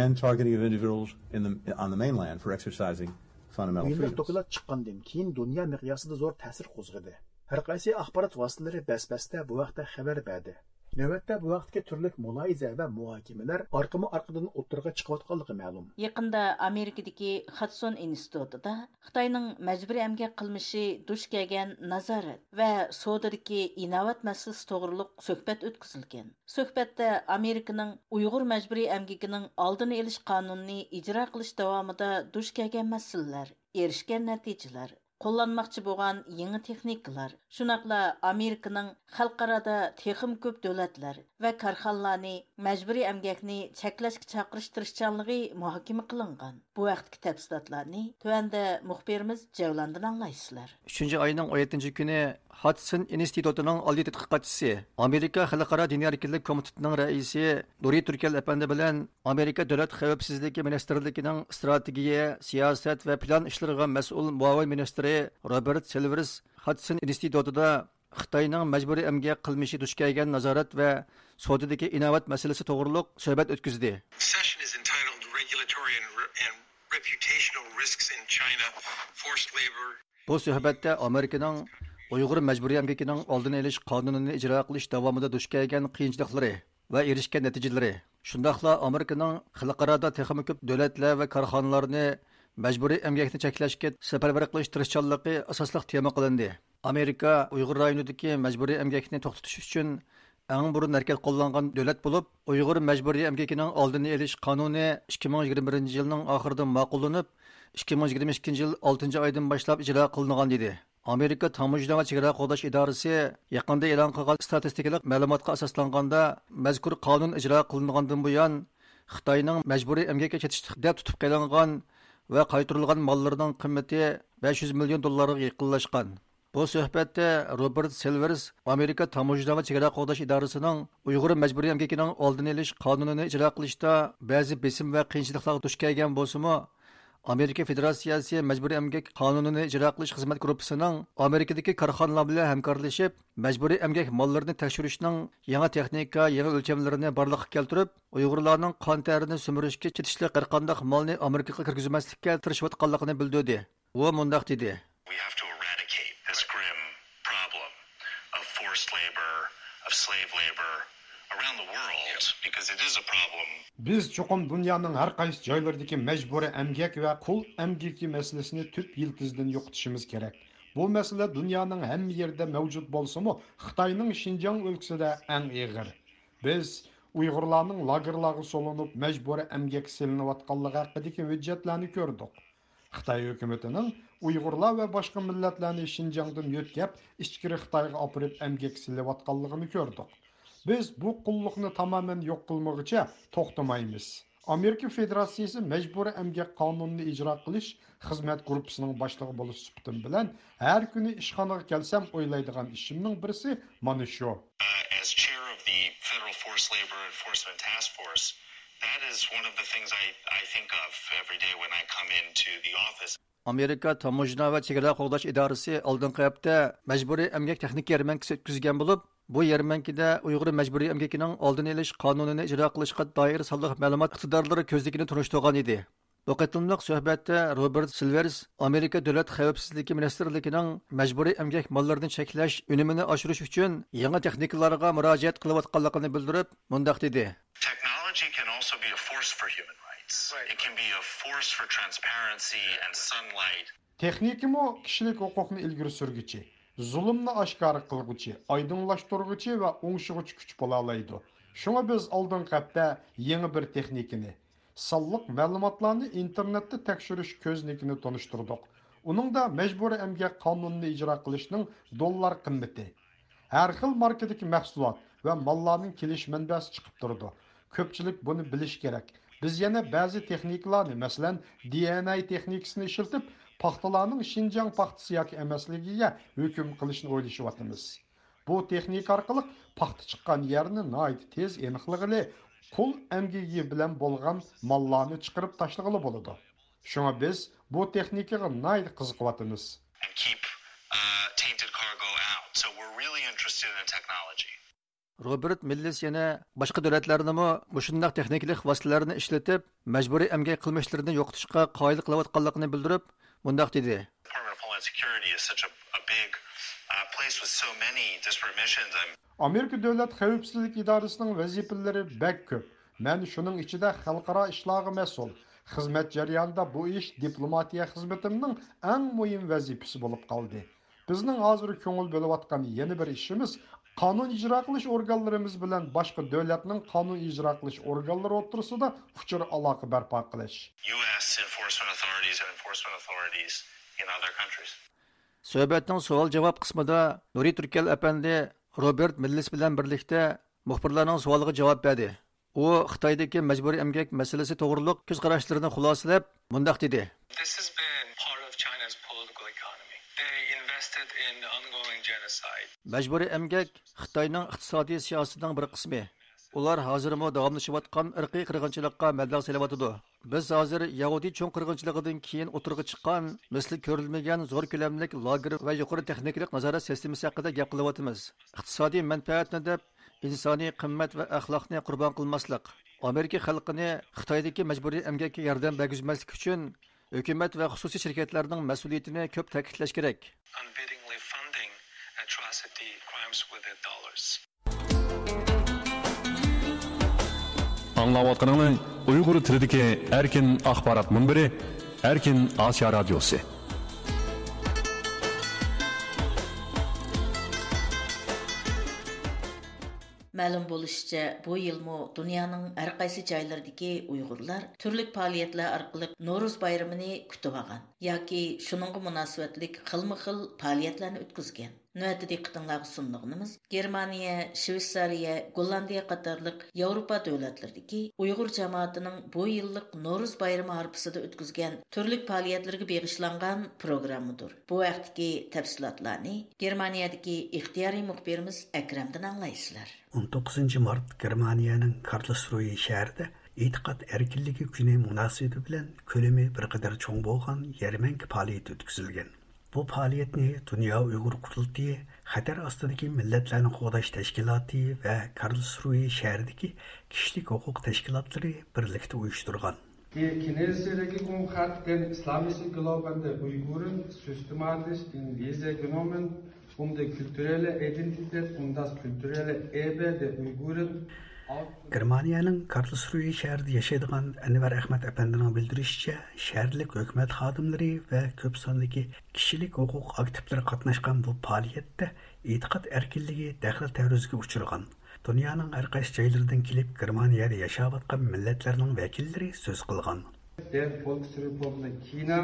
and targeting of individuals in the, on the mainland for exercising fundamental freedoms. بۇ يىللىق دوكلات چىققاندىن كېيىن دۇنيا مىقياسىدا زور تەسىر قوزغىدى. ھەر قايسى ئاخبارات ۋاسىتىلىرى بەس-بەستە بۇ ھەقتە خەۋەر بەردى. نۆۋەتتە بۇ ھەقتىكى تۈرلۈك مۇلاھىزە ۋە مۇھاكىمىلەر ئارقىمۇ ئارقىدىن ئوتتۇرىغا چىقىۋاتقانلىقى مەلۇم. يېقىندا ئامېرىكىدىكى خادسون ئىنستىتۇتىدا خىتاينىڭ مەجبۇرىي ئەمگەك قىلمىشى دۇچ كەلگەن نازارەت ۋە سودىدىكى ئىناۋەت مەسىلىسى توغرۇلۇق سۆھبەت ئۆتكۈزۈلگەن. سۆھبەتتە ئامېرىكىنىڭ ئۇيغۇر مەجبۇرىي ئەمگىكىنىڭ ئالدىنى ئېلىش قانۇنىنى ئىجرا قىلىش داۋامىدا دۇچ كەلگەن مەسىلىلەر، ئېرىشكەن نەتىجىلەر، قوللانماقچى بولغان يېڭى تېخنىكىلار، شۇنداقلا ئامېرىكىنىڭ خەلقئارادا تېخىمۇ كۆپ دۆلەتلەر ۋە كارخانىلارنى مەجبۇرىي ئەمگەكنى چەكلەشكە چاقىرىش تىرىشچانلىقى مۇھاكىمە قىلىنغان. بۇ ھەقتىكى تەپسىلاتلارنى تۆۋەندە مۇخبىرىمىز جەۋلاندىن ئاڭلايسىلەر. ئۈچىنچى ئاينىڭ ئون يەتتىنچى كۈنى ھادسون ئىنستىتۇتىنىڭ ئالىي تەتقىقاتچىسى، ئامېرىكا خەلقئارا دىنىي ئەركىنلىك كومىتېتىنىڭ رەئىسى نۇرى تۈركەل ئەپەندى بىلەن ئامېرىكا دۆلەت خەۋپسىزلىكى مىنىستىرلىكىنىڭ ئىستراتېگىيە، سىياسەت ۋە پىلان ئىشلىرىغا مەسئۇل مۇئاۋىن مىنىستىرى روبېرت سىلۋېرس ھادسون ئىنستىتۇتىدا خىتاينىڭ مەجبۇرىي ئەمگەك قىلمىشى دۇچ كەلگەن نازارەت ۋە سودىدىكى ئىناۋەت مەسىلىسى توغرۇلۇق سۆھبەت ئۆتكۈزدى. Session is entitled Regulatory and, and Reputational Risks in China, Forced Labor. بۇ سۆھبەتتە ئامېرىكىنىڭ ئۇيغۇر مەجبۇرىي ئەمگىكىنىڭ ئالدىنى ئېلىش قانۇنىنى ئىجرا قىلىش داۋامىدا دۇچ كەلگەن قىيىنچىلىقلىرى ۋە ئېرىشكەن نەتىجىلىرى، شۇنداقلا ئامېرىكىنىڭ خەلقئارادا تېخىمۇ كۆپ دۆلەتلەر ۋە كارخانىلارنى مەجبۇرىي ئەمگەكنى چەكلەشكە سەپەرۋەر قىلىش تىرىشچانلىقى ئاساسلىق تېما قىلىندى. ئامېرىكا ئۇيغۇر رايونىدىكى مەجبۇرىي ئەمگەكنى توختىتىش ئۈچۈن ئەڭ بۇرۇن ھەرىكەت قوللانغان دۆلەت بولۇپ، ئۇيغۇر مەجبۇرىي ئەمگىكىنىڭ ئالدىنى ئېلىش قانۇنى ئىككى مىڭ يىگىرمە بىرىنچى يىلنىڭ ئاخىرىدا ماقۇللىنىپ، ئىككى مىڭ يىگىرمە ئىككىنچى يىل ئالتىنچى ئايدىن باشلاپ ئىجرا قىلىنغان ئىدى. ئامېرىكا تاموژنا ۋە چېگرا قوغداش ئىدارىسى يېقىندا ئېلان قىلغان ئىستاتىستىكىلىق مەلۇماتقا ئاساسلانغاندا، مەزكۇر قانۇن ئىجرا قىلىنغاندىن بۇيان، خىتاينىڭ مەجبۇرىي ئەمگەككە كېتىشلىق دەپ تۇتۇپ قېلىنغان ۋە قايتۇرۇلغان ماللىرىنىڭ قىممىتى بەش يۈز مىليون دوللارغا يېقىنلاشقان. بۇ سۆھبەتتە روبېرت سىلۋېرس ئامېرىكا تاموژنا ۋە چېگرا قوغداش ئىدارىسىنىڭ ئۇيغۇر مەجبۇرىي ئەمگىكىنىڭ ئالدىنى ئېلىش قانۇنىنى ئىجرا قىلىشتا بەزى بېسىم ۋە قىيىنچىلىقلارغا دۇچ كەلگەن بولسىمۇ، ئامېرىكا فېدېراتسىيەسى مەجبۇرىي ئەمگەك قانۇنىنى ئىجرا قىلىش خىزمەت گۇرۇپپىسىنىڭ ئامېرىكىدىكى كارخانىلار بىلەن ھەمكارلىشىپ، مەجبۇرىي ئەمگەك ماللىرىنى تەكشۈرۈشنىڭ يېڭى تېخنىكا، يېڭى ئۆلچەملىرىنى بارلىققا كەلتۈرۈپ، ئۇيغۇرلارنىڭ قان تەرىنى سۈمۈرۈشكە كېتىشلىك ھەرقانداق مالنى ئامېرىكىغا كىرگۈزمەسلىككە تىرىشىۋاتقانلىقىنى بىلدۈردى. ئۇ مۇنداق دېدى. We have to eradicate this grim problem of forced labor, of slave labor around the world, because it is a problem. بىز چوقۇم دۇنيانىڭ ھەر قايسى جايلىرىدىكى مەجبۇرىي ئەمگەك ۋە قۇل ئەمگىكى مەسىلىسىنى تۈپ يىلتىزىدىن يوقىتىشىمىز كېرەك. بۇ مەسىلە دۇنيانىڭ ھەممە يېرىدە مەۋجۇت بولسىمۇ، خىتاينىڭ شىنجاڭ ئۆلكىسىدە ئەڭ ئېغىر. بىز ئۇيغۇرلارنىڭ لاگېرلارغا سولىنىپ، مەجبۇرىي ئەمگەككە سېلىنىۋاتقانلىقى ھەققىدىكى ھۆججەتلەرنى كۆردۇق. خىتاي ھۆكۈمىتىنىڭ ئۇيغۇرلار ۋە باشقا مىللەتلەرنى شىنجاڭدىن يۆتكەپ، ئىچكىرى خىتايغا ئاپىرىپ ئەمگەككە سېلىۋاتقانلىقىنى كۆردۇق. بىز بۇ قۇللۇقنى تامامەن يوق قىلمىغۇچە توختىمايمىز. ئامېرىكا فېدېراتسىيىسى مەجبۇرىي ئەمگەك قانۇنىنى ئىجرا قىلىش خىزمەت گۇرۇپپىسىنىڭ باشلىقى بولۇش سۈپىتىم بىلەن، ھەر كۈنى ئىشخانىغا كەلسەم ئويلايدىغان ئىشىمنىڭ بىرسى مانا شۇ. Uh, as chair of the Federal Forced Labor Enforcement Task Force, that is one of the things I, I think of every day when I come into the office. ئامېرىكا تاموژنا ۋە چېگرا قوغداش ئىدارىسى ئالدىنقى ھەپتە مەجبۇرىي ئەمگەك تېخنىكا يەرمەنكىسى ئۆتكۈزگەن بولۇپ، بۇ يەرمەنكىدە ئۇيغۇر مەجبۇرىي ئەمگىكىنىڭ ئالدىنى ئېلىش قانۇنىنى ئىجرا قىلىشقا دائىر سانلىق مەلۇمات ئىقتىدارلىرى كۆزنىكىنى تونۇشتۇرغان ئىدى. بۇ قېتىملىق سۆھبەتتە روبېرت سىلۋېرس ئامېرىكا دۆلەت خەۋپسىزلىكى مىنىستىرلىكىنىڭ مەجبۇرىي ئەمگەك ماللىرىنى چەكلەش ئۈنۈمىنى ئاشۇرۇش ئۈچۈن يېڭى تېخنىكىلارغا مۇراجىئەت قىلىۋاتقانلىقىنى بىلدۈرۈپ، مۇنداق دېدى. Technology can also be a force for human rights. Right. It can be a force for transparency and sunlight. تېخنىكىمۇ كىشىلىك ھوقۇقنى ئىلگىرى سۈرگۈچى، زۇلۇمنى ئاشكارا قىلغۇچى، ئايدىڭلاشتۇرغۇچى ۋە ئوڭشىغۇچى كۈچ بولالايدۇ. شۇڭا بىز ئالدىنقى ھەپتە يېڭى بىر تېخنىكىنى، سانلىق مەلۇماتلارنى ئىنتېرنېتتا تەكشۈرۈش كۆزنىكىنى تونۇشتۇردۇق. ئۇنىڭدا مەجبۇرىي ئەمگەك قانۇنىنى ئىجرا قىلىشنىڭ دوللار قىممىتى، ھەر خىل ماركىدىكى مەھسۇلات ۋە ماللارنىڭ كېلىش مەنبەسى چىقىپ تۇرىدۇ. كۆپچىلىك بۇنى بىلىشى كېرەك. بىز يەنە بەزى تېخنىكىلارنى، مەسىلەن، دى ئېن ئەي تېخنىكىسىنى ئىشلىتىپ، پاختىلارنىڭ شىنجاڭ پاختىسى ياكى ئەمەسلىكىگە ھۆكۈم قىلىشنى ئويلىشىۋاتىمىز. بۇ تېخنىكا ئارقىلىق پاختا چىققان يەرنى ناھايىتى تېز ئېنىقلىغىلى، قۇل ئەمگىكى بىلەن بولغان ماللارنى چىقىرىپ تاشلىغىلى بولىدۇ. شۇڭا بىز بۇ تېخنىكىغا ناھايىتى قىزىقىۋاتىمىز. And keep, uh, tainted cargo out. So we're really interested in technology. روبېرت مىللىس يەنە باشقا دۆلەتلەرنىمۇ مۇشۇنداق تېخنىكىلىق ۋاسىتىلەرنى ئىشلىتىپ، مەجبۇرىي ئەمگەك قىلمىشلىرىنى يوقىتىشقا قايىل قىلىۋاتقانلىقىنى بىلدۈرۈپ، مۇنداق دېدى. Department of Homeland Security is such a, a big, uh, place with so many disparate missions. I'm ئامېرىكا دۆلەت خەۋپسىزلىك ئىدارىسىنىڭ ۋەزىپىلىرى بەك كۆپ. مەن شۇنىڭ ئىچىدە خەلقئارا ئىشلارغا مەسئۇل. خىزمەت جەريانىدا بۇ ئىش دىپلوماتىيە خىزمىتىمنىڭ ئەڭ مۇھىم ۋەزىپىسى بولۇپ قالدى. بىزنىڭ ھازىر كۆڭۈل بۆلۈۋاتقان يەنە بىر ئىشىمىز، قانۇن ئىجرا قىلىش ئورگانلىرىمىز بىلەن باشقا دۆلەتنىڭ قانۇن ئىجرا قىلىش ئورگانلىرى ئوتتۇرىسىدا ئۇچۇر ئالاقە بەرپا قىلىش. U S enforcement authorities and enforcement authorities in other countries. سۆھبەتنىڭ سوئال-جاۋاب قىسمىدا نۇرى تۈركەل ئەپەندى روبېرت مىللىس بىلەن بىرلىكتە مۇخبىرلارنىڭ سوئالىغا جاۋاب بەردى. ئۇ خىتايدىكى مەجبۇرىي ئەمگەك مەسىلىسى توغرۇلۇق كۆز قاراشلىرىنى خۇلاسىلەپ، مۇنداق دېدى. This has been part of China's political economy. They invested in the ongoing genocide. مەجبۇرىي ئەمگەك خىتاينىڭ ئىقتىسادىي سىياسىتىنىڭ بىر قىسمى. ئۇلار ھازىرمۇ داۋاملىشىۋاتقان ئىرقىي قىرغىنچىلىققا مەبلەغ سېلىۋاتىدۇ. بىز ھازىر يەھۇدىي چوڭ قىرغىنچىلىقىدىن كېيىن ئوتتۇرىغا چىققان مىسلى كۆرۈلمىگەن زور كۆلەملىك لاگېر ۋە يۇقىرى تېخنىكىلىق نازارەت سىستېمىسى ھەققىدە گەپ قىلىۋاتىمىز. ئىقتىسادىي مەنپەئەتنى دەپ، ئىنسانىي قىممەت ۋە ئەخلاقنى قۇربان قىلماسلىق، ئامېرىكا خەلقىنى خىتايدىكى مەجبۇرىي ئەمگەككە ياردەم بەرگۈزمەسلىك ئۈچۈن ھۆكۈمەت ۋە خۇسۇسىي شىركەتلەرنىڭ مەسئۇلىيىتىنى كۆپ تەكىتلەش كېرەك. Unwittingly funding atrocity crimes with their dollars. ئاڭلاۋاتقىنىڭلار ئۇيغۇر تىلىدىكى ئەركىن ئاخبارات مۇنبىرى، ئەركىن ئاسىيا رادىيوسى. مەلۇم بولۇشىچە، بۇ يىلمۇ دۇنيانىڭ ھەر قايسى جايلىرىدىكى ئۇيغۇرلار تۈرلۈك پائالىيەتلەر ئارقىلىق نورۇز بايرىمىنى كۈتۈۋالغان ياكى شۇنىڭغا مۇناسىۋەتلىك خىلمۇ خىل پائالىيەتلەرنى ئۆتكۈزگەن. نۆۋەتتە دىققىتىڭلارغا سۇنىدىغىنىمىز، گېرمانىيە، شۋېتسارىيە، گوللاندىيە قاتارلىق ياۋروپا دۆلەتلىرىدىكى ئۇيغۇر جامائىتىنىڭ بۇ يىللىق نورۇز بايرىمى ھارپىسىدا ئۆتكۈزگەن تۈرلۈك پائالىيەتلىرىگە بېغىشلانغان پروگراممىدۇر. بۇ ھەقتىكى تەپسىلاتلارنى گېرمانىيەدىكى ئىختىيارىي مۇخبىرىمىز ئەكرەمدىن ئاڭلايسىلەر. ئون توققۇزىنچى مارت گېرمانىيەنىڭ كارلسرۇيې شەھىرىدە ئېتىقاد ئەركىنلىكى كۈنى مۇناسىۋىتى بىلەن كۆلىمى بىر قەدەر چوڭ بولغان يەرمەنكە پائالىيىتى ئۆتكۈزۈلگەن. بۇ پائالىيەتنى دۇنيا ئۇيغۇر قۇرۇلتىيى، خەتەر ئاستىدىكى مىللەتلەرنى قوغداش تەشكىلاتى ۋە كارلسرۇيې شەھىرىدىكى كىشىلىك ھوقۇق تەشكىلاتلىرى بىرلىكتە ئۇيۇشتۇرغان. Die chinesische Regierung hat den islamischen Glauben der Uiguren systematisch in Visier genommen, um die kulturelle Identität und das kulturelle Erbe der Uiguren aufzunehmen. گېرمانىيەنىڭ كارلسرۇيې شەھىرىدە ياشايدىغان ئەنۋەر ئەخمەت ئەپەندىنىڭ بىلدۈرۈشىچە، شەھەرلىك ھۆكۈمەت خادىملىرى ۋە كۆپ ساندىكى كىشىلىك ھوقۇق ئاكتىپلىرى قاتناشقان بۇ پائالىيەتتە ئېتىقاد ئەركىنلىكى دەخلى تەرۇزغا ئۇچرىغان. دۇنيانىڭ ھەر قايسى جايلىرىدىن كېلىپ گېرمانىيەدە ياشاۋاتقان مىللەتلەرنىڭ ۋەكىللىرى سۆز قىلغان. Der Volksrepublik China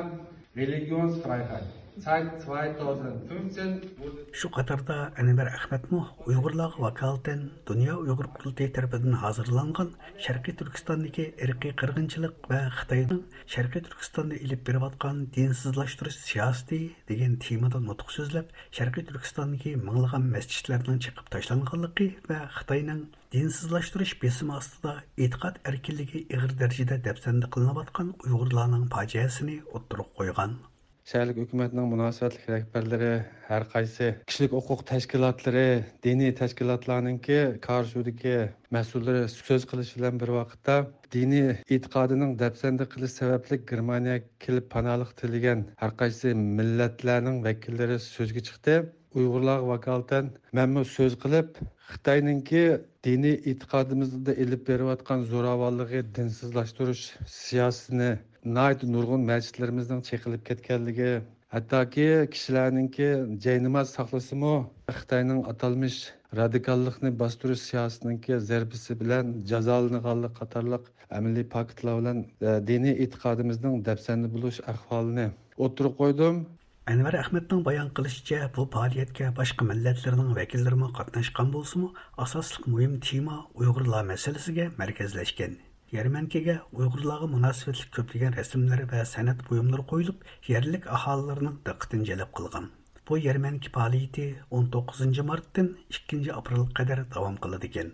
Religionsfreiheit seit zweitausendfünfzehn wurde. شۇ قاتاردا ئەنۋەر ئەخمەتمۇ ئۇيغۇرلارغا ۋاكالىتەن دۇنيا ئۇيغۇر قۇرۇلتىيى تەرىپىدىن ھازىرلانغان شەرقىي تۈركىستاندىكى ئىرقىي قىرغىنچىلىق ۋە خىتاينىڭ شەرقىي تۈركىستاندا ئېلىپ بېرىۋاتقان دىنسىزلاشتۇرۇش سىياسىتى دېگەن تېمىدا نۇتۇق سۆزلەپ، شەرقىي تۈركىستاندىكى مىڭلىغان مەسچىتلەرنىڭ چېقىپ تاشلانغانلىقى ۋە خىتاينىڭ دىنسىزلاشتۇرۇش بېسىمى ئاستىدا ئېتىقاد ئەركىنلىكى ئېغىر دەرىجىدە دەپسەندە قىلىنىۋاتقان ئۇيغۇرلارنىڭ پاجىئەسىنى ئوتتۇرىغا قويغان. شەھەرلىك ھۆكۈمەتنىڭ مۇناسىۋەتلىك رەھبەرلىرى، ھەر قايسى كىشىلىك ھوقۇق تەشكىلاتلىرى، دىنىي تەشكىلاتلارنىڭكى كارسۇدىكى مەسئۇللىرى سۆز قىلىش بىلەن بىر ۋاقىتتا، دىنىي ئېتىقادىنىڭ دەپسەندە قىلىش سەۋەبلىك گېرمانىيەگە كېلىپ پاناھلىق تىلىگەن ھەر قايسى مىللەتلەرنىڭ ۋەكىللىرى سۆزگە چىقتى. ئۇيغۇرلارغا ۋاكالىتەن مەنمۇ سۆز قىلىپ، خىتاينىڭكى دىنىي ئېتىقادىمىزدا ئېلىپ بېرىۋاتقان زوراۋانلىقى، دىنسىزلاشتۇرۇش سىياسىتىنى ناھايىتى نۇرغۇن مەسچىتلىرىمىزنىڭ چېقىلىپ كەتكەنلىكى، ھەتتاكى كىشىلەرنىڭكى جايناماز ساقلىسىمۇ، خىتاينىڭ ئاتالمىش رادىكاللىقنى باستۇرۇش سىياسىتىنىڭكى زەربىسى بىلەن جازالىنىدىغانلىقى قاتارلىق ئەمەلىي پاكىتلار بىلەن، ئە، دىنىي ئېتىقادىمىزنىڭ دەپسەندە بولۇش ئەھۋالىنى ئوتتۇرىغا قويدۇم. ئەنۋەر ئەخمەتنىڭ بايان قىلىشىچە، بۇ پائالىيەتكە باشقا مىللەتلەرنىڭ ۋەكىللىرىمۇ قاتناشقان بولسىمۇ، ئاساسلىق مۇھىم تېما ئۇيغۇرلار مەسىلىسىگە مەركەزلەشكەن. يەرمەنكىگە ئۇيغۇرلارغا مۇناسىۋەتلىك كۆپلىگەن رەسىملەر ۋە سەنئەت بۇيۇملىرى قويۇلۇپ، يەرلىك ئاھالىلەرنىڭ دىققىتىنى جەلپ قىلغان. بۇ يەرمەنكە پائالىيىتى ئون توققۇزىنچى مارتتىن ئىككىنچى ئاپرېلغا قەدەر داۋام قىلىدىكەن.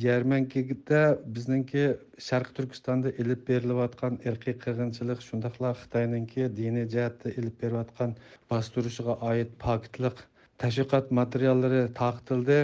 يەرمەنكىدە بىزنىڭكى شەرقىي تۈركىستاندا ئېلىپ بېرىلىۋاتقان ئىرقىي قىرغىنچىلىق، شۇنداقلا خىتاينىڭكى دىنىي جەھەتتە ئېلىپ بېرىۋاتقان باستۇرۇشىغا ئائىت پاكىتلىق تەشۋىقات ماتېرىياللىرى تارقىتىلدى.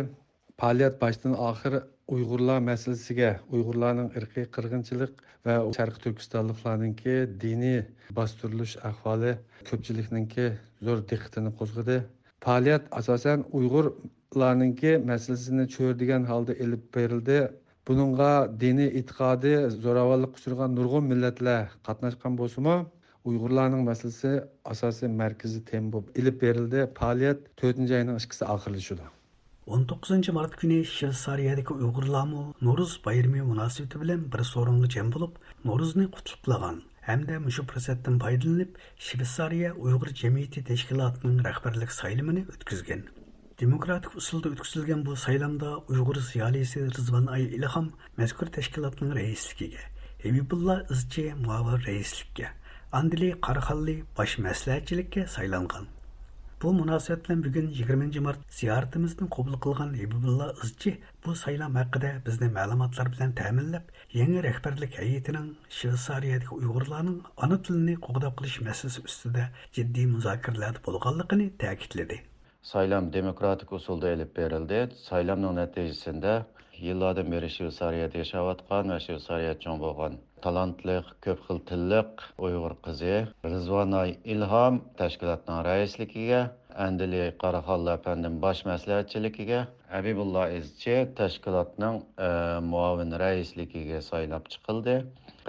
پائالىيەت باشتىن ئاخىر ئۇيغۇرلار مەسىلىسىگە، ئۇيغۇرلارنىڭ ئىرقىي قىرغىنچىلىق ۋە شەرقىي تۈركىستانلىقلارنىڭكى دىنىي باستۇرۇلۇش ئەھۋالى كۆپچىلىكنىڭكى زور دىققىتىنى قوزغىدى. پائالىيەت ئاساسەن ئۇيغۇرلارنىڭكى مەسىلىسىنى چۆرىدىگەن ھالدا ئېلىپ بېرىلدى. بۇنىڭغا دىنىي ئېتىقادى زوراۋانلىققا ئۇچرىغان نۇرغۇن مىللەتلەر قاتناشقان بولسىمۇ، ئۇيغۇرلارنىڭ مەسىلىسى ئاساسىي مەركىزىي تېما بولۇپ ئېلىپ بېرىلدى. پائالىيەت تۆتىنچى ئاينىڭ ئىككىسى ئاخىرلىشىدۇ. ئون توققۇزىنچى مارت كۈنى شۋېتسارىيەدىكى ئۇيغۇرلارمۇ نورۇز بايرىمى مۇناسىۋىتى بىلەن بىر سورۇنغا جەم بولۇپ، نورۇزنى قۇتلۇقلىغان ھەمدە مۇشۇ پۇرسەتتىن پايدىلىنىپ، شۋېتسارىيە ئۇيغۇر جەمئىيىتى تەشكىلاتىنىڭ رەھبەرلىك سايلىمىنى ئۆتكۈزگەن. دېموكراتىك ئۇسۇلدا ئۆتكۈزۈلگەن بۇ سايلامدا ئۇيغۇر زىيالىيسى رىزۋان ئاي ئىلھام مەزكۇر تەشكىلاتنىڭ رەئىسلىكىگە، ھەبىبۇللا ئىزچى مۇئاۋىن رەئىسلىككە، ئاندىلى قاراخانلى باش مەسلىھەتچىلىككە سايلانغان. بۇ مۇناسىۋەت بىلەن بۈگۈن يىگىرمىنچى مارت زىيارىتىمىزنى قوبۇل قىلغان ھېبىبۇللا ئىزچى بۇ سايلام ھەققىدە بىزنى مەلۇماتلار بىلەن تەمىنلەپ، يېڭى رەھبەرلىك ھەيئىتىنىڭ شۋېتسارىيەدىكى ئۇيغۇرلارنىڭ ئانا تىلىنى قوغداپ قېلىش مەسىلىسى ئۈستىدە جىددىي مۇزاكىرىلەردە بولغانلىقىنى تەكىتلىدى. سايلام دېموكراتىك ئۇسۇلدا ئېلىپ بېرىلدى. سايلامنىڭ نەتىجىسىندە يىللاردىن بېرى شۋېتسارىيەدە ياشاۋاتقان ۋە شۋېتسارىيەدە چوڭ بولغان تالانتلىق، كۆپ خىل تىللىق ئۇيغۇر قىزى رىزۋاناي ئىلھام تەشكىلاتنىڭ رەئىسلىكىگە، ئەندىلى قاراخانلار ئەپەندىم باش مەسلىھەتچىلىكىگە، ھەبىبۇللا ئىزچى تەشكىلاتنىڭ، ئە، مۇئاۋىن رەئىسلىكىگە سايلاپ چىقىلدى.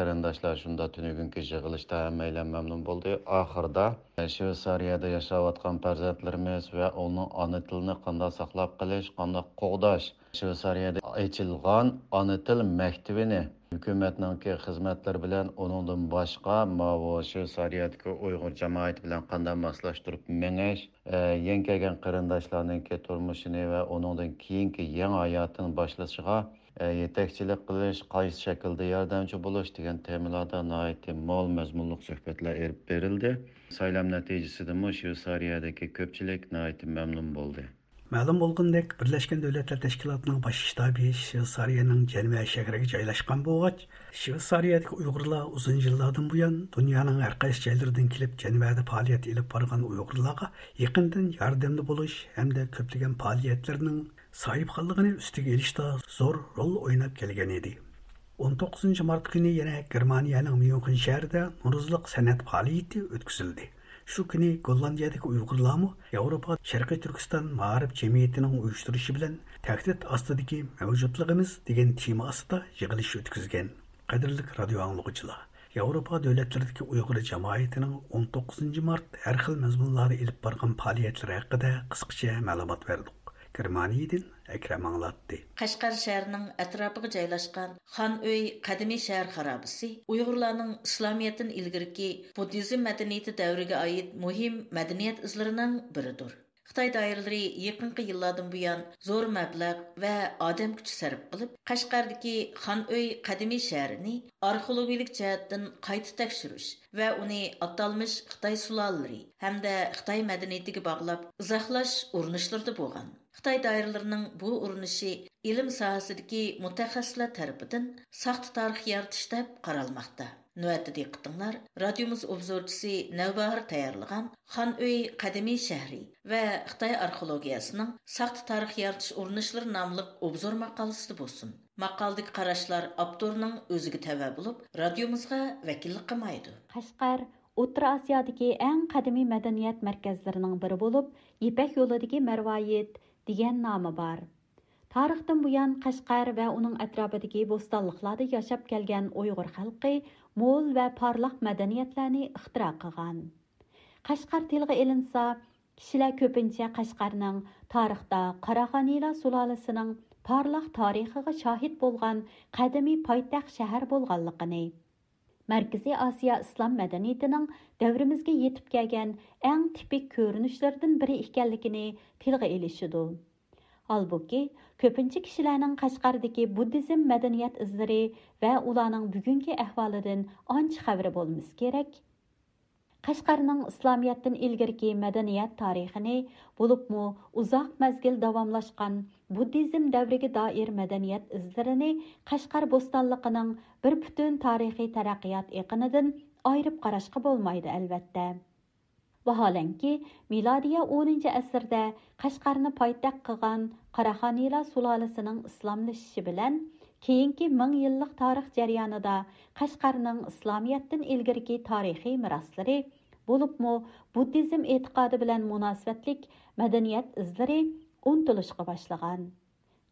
قېرىنداشلار شۇندا تۈنۈگۈنكى يىغىلىشتا ھەممەيلەن مەمنۇن بولدى. ئاخىرىدا، ئە، شۋېتسارىيەدە ياشاۋاتقان پەرزەنتلىرىمىز ۋە ئۇنىڭ ئانا تىلىنى قانداق ساقلاپ قېلىش، قانداق قوغداش، شۋېتسارىيەدە ئېچىلغان ئانا تىل مەكتىۋىنى ھۆكۈمەتنىڭكى خىزمەتلىرى بىلەن، ئۇنىڭدىن باشقا ماۋۇ شۋېتسارىيەدىكى ئۇيغۇر جامائىتى بىلەن قانداق ماسلاشتۇرۇپ مېڭىش، ئە، يېڭى كەلگەن قېرىنداشلارنىڭكى تۇرمۇشىنى ۋە ئۇنىڭدىن كېيىنكى يېڭى ھاياتىنى باشلىشىغا، ئە، يېتەكچىلىك قىلىش، قايسى شەكىلدە ياردەمچى بولۇش دېگەن تېمىلاردا ناھايىتى مول مەزمۇنلۇق سۆھبەتلەر ئېلىپ بېرىلدى. سايلام نەتىجىسىدىنمۇ شۋېتسارىيەدىكى كۆپچىلىك ناھايىتى مەمنۇن بولدى. مەلۇم بولغىنىدەك، بىرلەشكەن دۆلەتلەر تەشكىلاتىنىڭ باش شتابى شۋېتسارىيەنىڭ جەنۋە شەھىرىگە جايلاشقان بولغاچ، شۋېتسارىيەدىكى ئۇيغۇرلار ئۇزۇن يىللاردىن بۇيان دۇنيانىڭ ھەر قايسى جايلىرىدىن كېلىپ جەنۋەدە پائالىيەت ئېلىپ بارغان ئۇيغۇرلارغا يېقىندىن ياردەمدە بولۇش ھەمدە كۆپلىگەن پائالىيەتلىرىنىڭ ساھىبخانلىقىنى ئۈستىگە ئېلىشتا زور رول ئويناپ كەلگەن ئىدى. ئون توققۇزىنچى مارت كۈنى يەنە گېرمانىيەنىڭ ميۇنخېن شەھىرىدە نورۇزلۇق سەنئەت پائالىيىتى ئۆتكۈزۈلدى. شۇ كۈنى گوللاندىيەدىكى ئۇيغۇرلارمۇ ياۋروپا شەرقىي تۈركىستان مائارىپ جەمئىيىتىنىڭ ئۇيۇشتۇرۇشى بىلەن تەھدىت ئاستىدىكى مەۋجۇتلۇقىمىز دېگەن تېما ئاستىدا يىغىلىش ئۆتكۈزگەن. قەدىرلىك رادىيو ئاڭلىغۇچىلار! ياۋروپا دۆلەتلىرىدىكى ئۇيغۇر جامائىتىنىڭ ئون توققۇزىنچى مارت ھەر خىل مەزمۇنلاردا ئېلىپ بارغان پائالىيەتلىرى ھەققىدە قىسقىچە مەلۇمات بەردۇق. گېرمانىيەدىن ئەكرەم ئاڭلاتتى. قەشقەر شەھىرىنىڭ ئەتراپىغا جايلاشقان خان ئۆي قەدىمىي شەھەر خارابىسى ئۇيغۇرلارنىڭ ئىسلامىيەتتىن ئىلگىرىكى بۇددىزم مەدەنىيىتى دەۋرىگە ئائىت مۇھىم مەدەنىيەت ئىزلىرىنىڭ بىرىدۇر. خىتاي دائىرىلىرى يېقىنقى يىللاردىن بۇيان زور مەبلەغ ۋە ئادەم كۈچى سەرپ قىلىپ، قەشقەردىكى خان ئۆي قەدىمىي شەھىرىنى ئارخېئولوگىيەلىك جەھەتتىن قايتا تەكشۈرۈش ۋە ئۇنى ئاتالمىش خىتاي سۇلالىلىرى ھەمدە خىتاي مەدەنىيىتىگە باغلاپ ئىزاھلاش ئۇرۇنۇشلىرىدا بولغان. خىتاي دائىرىلىرىنىڭ بۇ ئۇرۇنۇشى ئىلىم ساھەسىدىكى مۇتەخەسسىسلەر تەرىپىدىن ساختا تارىخ يارىتىش دەپ قارالماقتا. نۆۋەتتە دىققىتىڭلار رادىيومىز ئوبزورچىسى نەۋباھار تەييارلىغان خان ئۆي قەدىمىي شەھىرى ۋە خىتاي ئارخېئولوگىيەسىنىڭ ساختا تارىخ يارىتىش ئۇرۇنۇشلىرى ناملىق ئوبزور ماقالىسىدە بولسۇن. ماقالىدىكى قاراشلار ئاپتورنىڭ ئۆزىگە تەۋە بولۇپ، رادىيومىزغا ۋەكىللىك قىلمايدۇ. قەشقەر ئوتتۇرا ئاسىيادىكى ئەڭ قەدىمىي مەدەنىيەت مەركەزلىرىنىڭ بىرى بولۇپ، يىپەك يولىدىكى مەرۋايىت دېگەن نامى بار. تارىختىن بۇيان قەشقەر ۋە ئۇنىڭ ئەتراپىدىكى بوستانلىقلاردا ياشاپ كەلگەن ئۇيغۇر خەلقى مول ۋە پارلاق مەدەنىيەتلەرنى ئىختىرا قىلغان. قەشقەر تىلغا ئېلىنسا، كىشىلەر كۆپىنچە قەشقەرنىڭ تارىختا قاراخانىيلار سۇلالىسىنىڭ پارلاق تارىخىغا شاھىت بولغان قەدىمىي پايتەخت شەھەر بولغانلىقىنى، مەركىزىي ئاسىيا ئىسلام مەدەنىيىتىنىڭ دەۋرىمىزگە يېتىپ كەلگەن ئەڭ تىپىك كۆرۈنۈشلىرىدىن بىرى ئىكەنلىكىنى تىلغا ئېلىشىدۇ. ھالبۇكى، كۆپىنچە كىشىلەرنىڭ قەشقەردىكى بۇددىزم مەدەنىيەت ئىزلىرى ۋە ئۇلارنىڭ بۈگۈنكى ئەھۋالىدىن ئانچە خەۋىرى بولمىسا كېرەك. قەشقەرنىڭ ئىسلامىيەتتىن ئىلگىرىكى مەدەنىيەت تارىخىنى، بولۇپمۇ ئۇزاق مەزگىل داۋاملاشقان بۇددىزم دەۋرىگە دائىر مەدەنىيەت ئىزلىرىنى قەشقەر بوستانلىقىنىڭ بىر پۈتۈن تارىخىي تەرەققىيات ئېقىنىدىن ئايرىپ قاراشقا بولمايدۇ، ئەلۋەتتە. ۋاھالەنكى، مىلادىيە ئونىنچى ئەسىردە قەشقەرنى پايتەخت قىلغان قاراخانىيلار سۇلالىسىنىڭ ئىسلاملىشىشى بىلەن، كېيىنكى مىڭ يىللىق تارىخ جەريانىدا قەشقەرنىڭ ئىسلامىيەتتىن ئىلگىرىكى تارىخىي مىراسلىرى، بولۇپمۇ بۇددىزم ئېتىقادى بىلەن مۇناسىۋەتلىك مەدەنىيەت ئىزلىرى ئۇنتۇلۇشقا باشلىغان.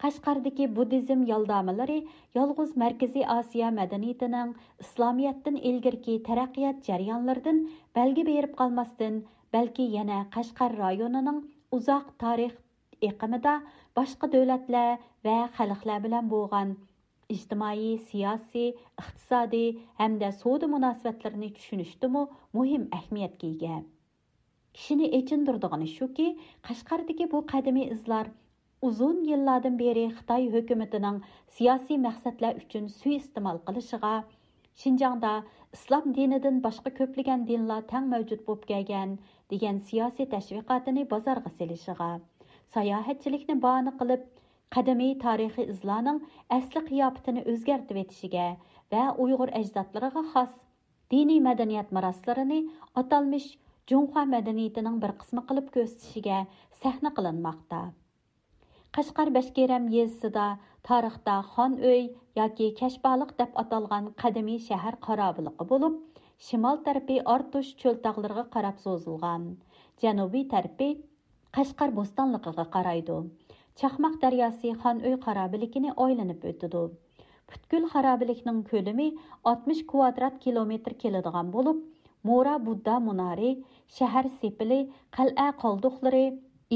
قەشقەردىكى بۇددىزم يالدامىلىرى يالغۇز مەركىزىي ئاسىيا مەدەنىيىتىنىڭ ئىسلامىيەتتىن ئىلگىرىكى تەرەققىيات جەريانلىرىدىن بەلگە بېرىپ قالماستىن، بەلكى يەنە قەشقەر رايونىنىڭ ئۇزاق تارىخ ئېقىمىدا باشقا دۆلەتلەر ۋە خەلقلەر بىلەن بولغان ئىجتىمائىي، سىياسىي، ئىقتىسادىي ھەمدە سودا مۇناسىۋەتلىرىنى چۈشىنىشتىمۇ مۇھىم ئەھمىيەتكە ئىگە. كىشىنى ئېچىندۇرىدىغىنى شۇكى، قەشقەردىكى بۇ قەدىمىي ئىزلار ئۇزۇن يىللاردىن بېرى خىتاي ھۆكۈمىتىنىڭ سىياسىي مەقسەتلەر ئۈچۈن سۇيىئىستېمال قىلىشىغا، شىنجاڭدا ئىسلام دىنىدىن باشقا كۆپلىگەن دىنلار تەڭ مەۋجۇت بولۇپ كەلگەن دېگەن سىياسىي تەشۋىقاتىنى بازارغا سېلىشىغا، ساياھەتچىلىكنى باھانە قىلىپ، قەدىمىي تارىخىي ئىزلارنىڭ ئەسلى قىياپىتىنى ئۆزگەرتىۋېتىشىگە ۋە ئۇيغۇر ئەجدادلىرىغا خاس دىنىي مەدەنىيەت مىراسلىرىنى ئاتالمىش جۇڭخۇا مەدەنىيىتىنىڭ بىر قىسمى قىلىپ كۆرسىتىشىگە سەھنە قىلىنماقتا. قەشقەر بەشكېرەم يېزىسىدا تارىختا خان ئۆي ياكى كەشبالىق دەپ ئاتالغان قەدىمىي شەھەر خارابىلىقى بولۇپ، شىمال تەرىپى ئارتۇش چۆل تاغلىرىغا قاراپ سوزۇلغان، جەنۇبىي تەرىپى قەشقەر بوستانلىقىغا قارايدۇ. چاقماق دەرياسى خان ئۆي خارابىلىكىنى ئايلىنىپ ئۆتىدۇ. پۈتكۈل خارابىلىكنىڭ كۆلىمى ئاتمىش كۋادرات كىلومېتىر كېلىدىغان بولۇپ، مورا بۇددا مۇنارى، شەھەر سېپىلى، قەلئە قالدۇقلىرى،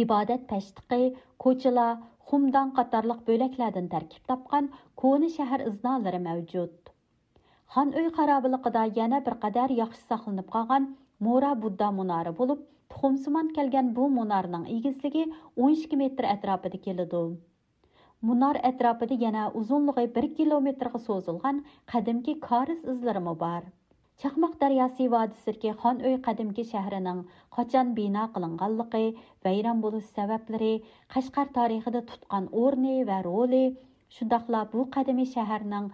ئىبادەت پەشتىقى، كوچىلار، خۇمدان قاتارلىق بۆلەكلەردىن تەركىب تاپقان كونا شەھەر ئىزنالىرى مەۋجۇت. خان ئۆي خارابىلىقىدا يەنە بىر قەدەر ياخشى ساقلىنىپ قالغان مورا بۇددا مۇنارى بولۇپ، تۇخۇمسىمان كەلگەن بۇ مۇنارنىڭ ئېگىزلىكى ئون ئىككى مېتىر ئەتراپىدا كېلىدۇ. مۇنار ئەتراپىدا يەنە ئۇزۇنلۇقى بىر كىلومېتىرغا سوزۇلغان قەدىمكى كارىز ئىزلىرىمۇ بار. چاقماق دەرياسى ۋادىسىدىكى خان ئۆي قەدىمكى شەھىرىنىڭ قاچان بىنا قىلىنغانلىقى، ۋەيران بولۇش سەۋەبلىرى، قەشقەر تارىخىدا تۇتقان ئورنى ۋە رولى، شۇنداقلا بۇ قەدىمىي شەھەرنىڭ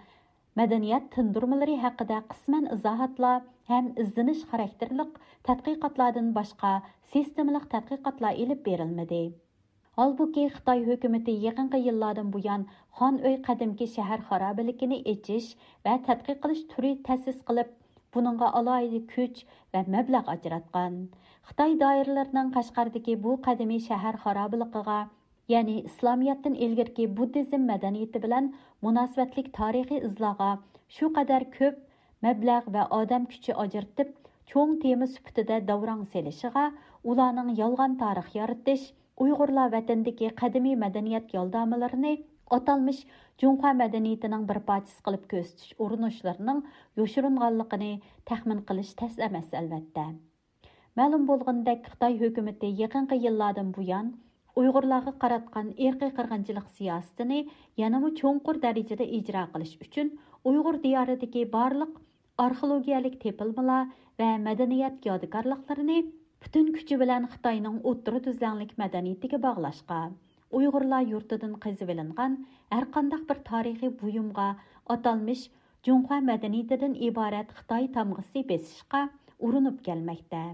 مەدەنىيەت تىندۇرمىلىرى ھەققىدە قىسمەن ئىزاھاتلار ھەم ئىزدىنىش خاراكتېرلىق تەتقىقاتلاردىن باشقا سىستېمىلىق تەتقىقاتلار ئېلىپ بېرىلمىدى. ھالبۇكى، خىتاي ھۆكۈمىتى يېقىنقى يىللاردىن بۇيان خان ئۆي قەدىمكى شەھەر خارابىلىكىنى ئېچىش ۋە تەتقىق قىلىش تۈرى تەسىس قىلىپ، بۇنىڭغا ئالاھىدە كۈچ ۋە مەبلەغ ئاجراتقان. خىتاي دائىرىلىرىنىڭ قەشقەردىكى بۇ قەدىمىي شەھەر خارابىلىقىغا، يەنى ئىسلامىيەتتىن ئىلگىرىكى بۇددىزم مەدەنىيىتى بىلەن مۇناسىۋەتلىك تارىخىي ئىزلارغا شۇ قەدەر كۆپ مەبلەغ ۋە ئادەم كۈچى ئاجرىتىپ، چوڭ تېما سۈپىتىدە داۋراڭ سېلىشىغا، ئۇلارنىڭ يالغان تارىخ يارىتىش، ئۇيغۇرلار ۋەتەندىكى قەدىمىي مەدەنىيەت يالدامىلىرىنى ئاتالمىش جۇڭخۇا مەدەنىيىتىنىڭ بىر پارچىسى قىلىپ كۆرسىتىش ئۇرۇنۇشلىرىنىڭ يوشۇرۇنغانلىقىنى تەخمىن قىلىش تەس ئەمەس، ئەلۋەتتە. مەلۇم بولغىنىدەك، خىتاي ھۆكۈمىتى يېقىنقى يىللاردىن بۇيان ئۇيغۇرلارغا قاراتقان ئىرقىي قىرغىنچىلىق سىياسىتىنى يەنىمۇ چوڭقۇر دەرىجىدە ئىجرا قىلىش ئۈچۈن، ئۇيغۇر دىيارىدىكى بارلىق ئارخېئولوگىيەلىك تېپىلمىلار ۋە مەدەنىيەت يادىكارلىقلىرىنى پۈتۈن كۈچى بىلەن خىتاينىڭ ئوتتۇرا تۈزلەڭلىك مەدەنىيىتىگە باغلاشقا، ئۇيغۇرلار يۇرتىدىن قېزىۋېلىنغان ھەرقانداق بىر تارىخىي بۇيۇمغا ئاتالمىش جۇڭخۇا مەدەنىيىتىدىن ئىبارەت خىتاي تامغىسى بېسىشقا ئۇرۇنۇپ كەلمەكتە.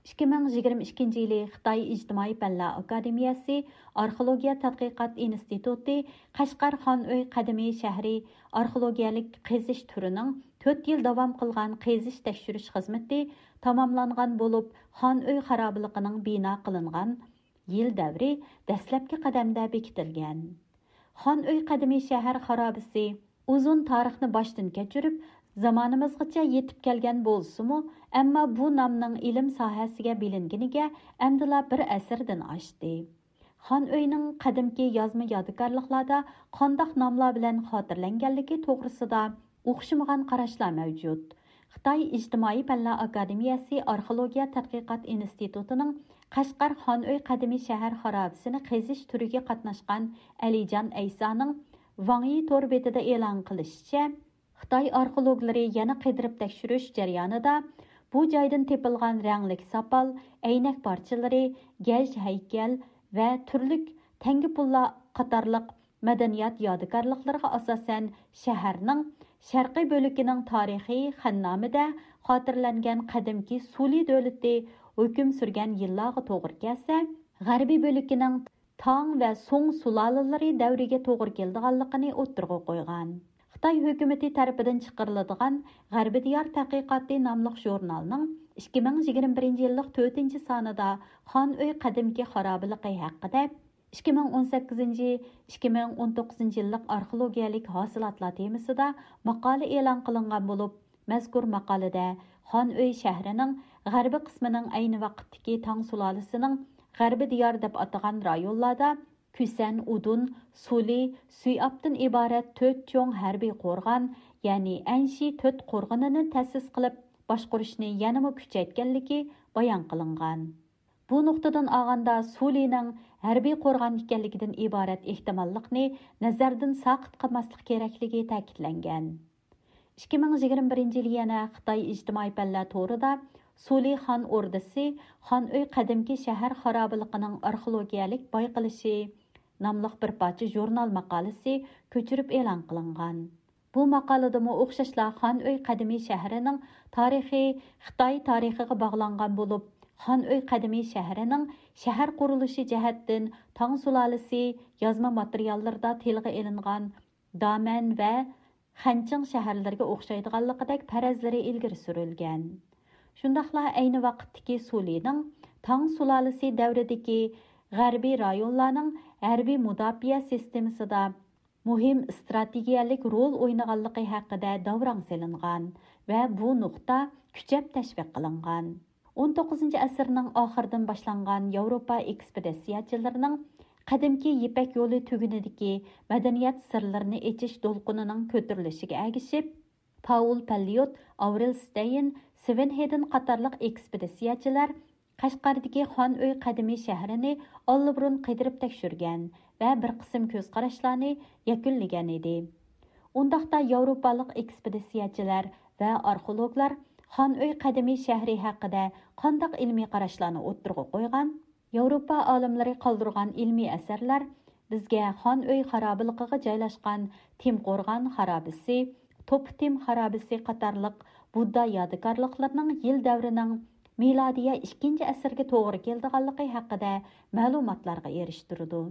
ئىككى مىڭ يىگىرمە ئىككىنچى يىلى خىتاي ئىجتىمائىي پەنلەر ئاكادېمىيەسى ئارخېئولوگىيە تەتقىقات ئىنستىتۇتى قەشقەر خان ئۆي قەدىمىي شەھىرى ئارخېئولوگىيەلىك قېزىش تۈرىنىڭ تۆت يىل داۋام قىلغان قېزىش تەكشۈرۈش خىزمىتى تاماملانغان بولۇپ، خان ئۆي خارابىلىقىنىڭ بىنا قىلىنغان يىل دەۋرى دەسلەپكى قەدەمدە بېكىتىلگەن. خان ئۆي قەدىمىي شەھەر خارابىسى ئۇزۇن تارىخنى باشتىن كەچۈرۈپ، زامانىمىزغىچە يېتىپ كەلگەن بولسىمۇ، ئەمما بۇ نامنىڭ ئىلىم ساھەسىگە بىلىنگىنىگە ئەمدىلا بىر ئەسىردىن ئاشتى. خان ئۆينىڭ قەدىمكى يازما يادىكارلىقلاردا قانداق ناملار بىلەن خاتىرىلەنگەنلىكى توغرىسىدا ئوخشىمىغان قاراشلار مەۋجۇت. خىتاي ئىجتىمائىي پەنلەر ئاكادېمىيەسى ئارخېئولوگىيە تەتقىقات ئىنستىتۇتىنىڭ قەشقەر خان ئۆي قەدىمىي شەھەر خارابىسىنى قېزىش تۈرىگە قاتناشقان ئەلىجان ئەيسانىڭ ۋاڭيى تور بېتىدە ئېلان قىلىشىچە، خىتاي ئارخېئولوگلىرى يەنە قىدىرىپ تەكشۈرۈش جەريانىدا بۇ جايدىن تېپىلغان رەڭلىك ساپال، ئەينەك پارچىلىرى، گەج ھەيكەل ۋە تۈرلۈك تەڭگە پۇللار قاتارلىق مەدەنىيەت يادىكارلىقلىرىغا ئاساسەن، شەھەرنىڭ شەرقىي بۆلىكىنىڭ تارىخى خەننامىدە خاتىرىلەنگەن قەدىمكى سۇلى دۆلىتى ھۆكۈم سۈرگەن يىللارغا توغرا كەلسە، غەربىي بۆلىكىنىڭ تاڭ ۋە سۇڭ سۇلالىلىرى دەۋرىگە توغرا كېلىدىغانلىقىنى ئوتتۇرىغا قويغان. خىتاي ھۆكۈمىتى تەرىپىدىن چىقىرىلىدىغان غەربىي دىيار تەتقىقاتى ناملىق ژۇرنالنىڭ ئىككى مىڭ يىگىرمە بىرىنچى يىللىق تۆتىنچى سانىدا خان ئۆي قەدىمكى خارابىلىقى ھەققىدە، ئىككى مىڭ ئون سەككىزىنچى، ئىككى مىڭ ئون توققۇزىنچى يىللىق ئارخېئولوگىيەلىك ھاسىلاتلار تېمىسىدا ماقالە ئېلان قىلىنغان بولۇپ، مەزكۇر ماقالىدە خان ئۆي شەھىرىنىڭ غەربىي قىسمىنىڭ ئەينى ۋاقىتتىكى تاڭ سۇلالىسىنىڭ غەربىي دىيار دەپ ئاتىغان رايونلاردا كۈسەن ئۇدۇن، سۇلى، سۈيئابتىن ئىبارەت تۆت چوڭ ھەربىي قورغان، يەنى ئەنشى تۆت قورغىنىنى تەسىس قىلىپ باشقۇرۇشنى يەنىمۇ كۈچەيتكەنلىكى بايان قىلىنغان. بۇ نۇقتىدىن ئالغاندا، سۇلىنىڭ ھەربىي قورغان ئىكەنلىكىدىن ئىبارەت ئېھتىماللىقنى نەزەردىن ساقىت قىلماسلىق كېرەكلىكى تەكىتلەنگەن. ئىككى مىڭ يىگىرمە بىرىنچى يىلى يەنە خىتاي ئىجتىمائىي پەنلەر تورىدا سۇلى خان ئوردىسى، خان ئۆي قەدىمكى شەھەر خارابىلىقىنىڭ ئارخېئولوگىيەلىك بايقىلىشى ناملىق بىر پارچە ژۇرنال ماقالىسى كۆچۈرۈپ ئېلان قىلىنغان. بۇ ماقالىدىمۇ ئوخشاشلا خان ئۆي قەدىمىي شەھىرىنىڭ تارىخى خىتاي تارىخىغا باغلانغان بولۇپ، خان ئۆي قەدىمىي شەھىرىنىڭ شەھەر قۇرۇلۇشى جەھەتتىن تاڭ سۇلالىسى يازما ماتېرىياللىرىدا تىلغا ئېلىنغان دامەن ۋە خەنچىڭ شەھەرلىرىگە ئوخشايدىغانلىقىدەك پەرەزلىرى ئىلگىرى سۈرۈلگەن. شۇنداقلا ئەينى ۋاقىتتىكى سۇلىنىڭ تاڭ سۇلالىسى دەۋرىدىكى غەربىي رايونلارنىڭ ھەربىي مۇداپىئە سىستېمىسىدا مۇھىم ئىستراتېگىيەلىك رول ئوينىغانلىقى ھەققىدە داۋراڭ سېلىنغان ۋە بۇ نۇقتا كۈچەپ تەشۋىق قىلىنغان. ئون توققۇزىنچى ئەسىرنىڭ ئاخىرىدىن باشلانغان ياۋروپا ئېكسپېدىتسىيەچىلىرىنىڭ قەدىمكى يىپەك يولى تۈگۈنىدىكى مەدەنىيەت سىرلىرىنى ئېچىش دولقۇنىنىڭ كۆتۈرۈلۈشىگە ئەگىشىپ، پاۋل پەللىيوت، ئاۋرېل ستەين، سۋېن ھېدېن قاتارلىق ئېكسپېدىتسىيەچىلەر قەشقەردىكى خان ئۆي قەدىمىي شەھىرىنى ئاللىبۇرۇن قىدىرىپ تەكشۈرگەن ۋە بىر قىسىم كۆز قاراشلارنى يەكۈنلىگەن ئىدى. ئۇنداقتا ياۋروپالىق ئېكسپېدىتسىيەچىلەر ۋە ئارخېئولوگلار خان ئۆي قەدىمىي شەھىرى ھەققىدە قانداق ئىلمىي قاراشلارنى ئوتتۇرىغا قويغان؟ ياۋروپا ئالىملىرى قالدۇرغان ئىلمىي ئەسەرلەر بىزگە خان ئۆي خارابىلىقىغا جايلاشقان تىم قورغان خارابىسى، توپا تىم خارابىسى قاتارلىق بۇددا يادىكارلىقلىرىنىڭ يىل دەۋرىنىڭ مىلادىيە ئىككىنچى ئەسىرگە توغرا كېلىدىغانلىقى ھەققىدە مەلۇماتلارغا ئېرىشتۈرىدۇ.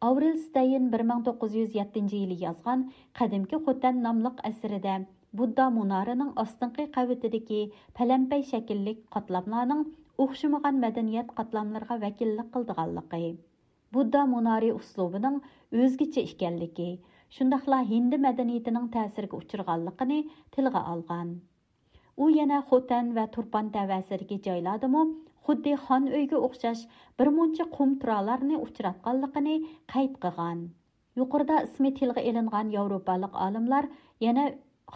ئاۋرېل ستەين بىر مىڭ توققۇز يۈز يەتتىنچى يىلى يازغان قەدىمكى خوتەن ناملىق ئەسىرىدە بۇددا مۇنارىنىڭ ئاستىنقى قەۋىتىدىكى پەلەمپەي شەكىللىك قاتلاملارنىڭ ئوخشىمىغان مەدەنىيەت قاتلاملىرىغا ۋەكىللىك قىلىدىغانلىقى، بۇددا مۇنارى ئۇسلۇبىنىڭ ئۆزگىچە ئىكەنلىكى، شۇنداقلا ھىندى مەدەنىيىتىنىڭ تەسىرىگە ئۇچرىغانلىقىنى تىلغا ئالغان. ئۇ يەنە خوتەن ۋە تۇرپان تەۋەسىدىكى جايلاردىمۇ خۇددى خان ئۆيگە ئوخشاش بىر مۇنچە قۇم تۇرالارنى ئۇچراتقانلىقىنى قەيت قىلغان. يۇقىرىدا ئىسمى تىلغا ئېلىنغان ياۋروپالىق ئالىملار يەنە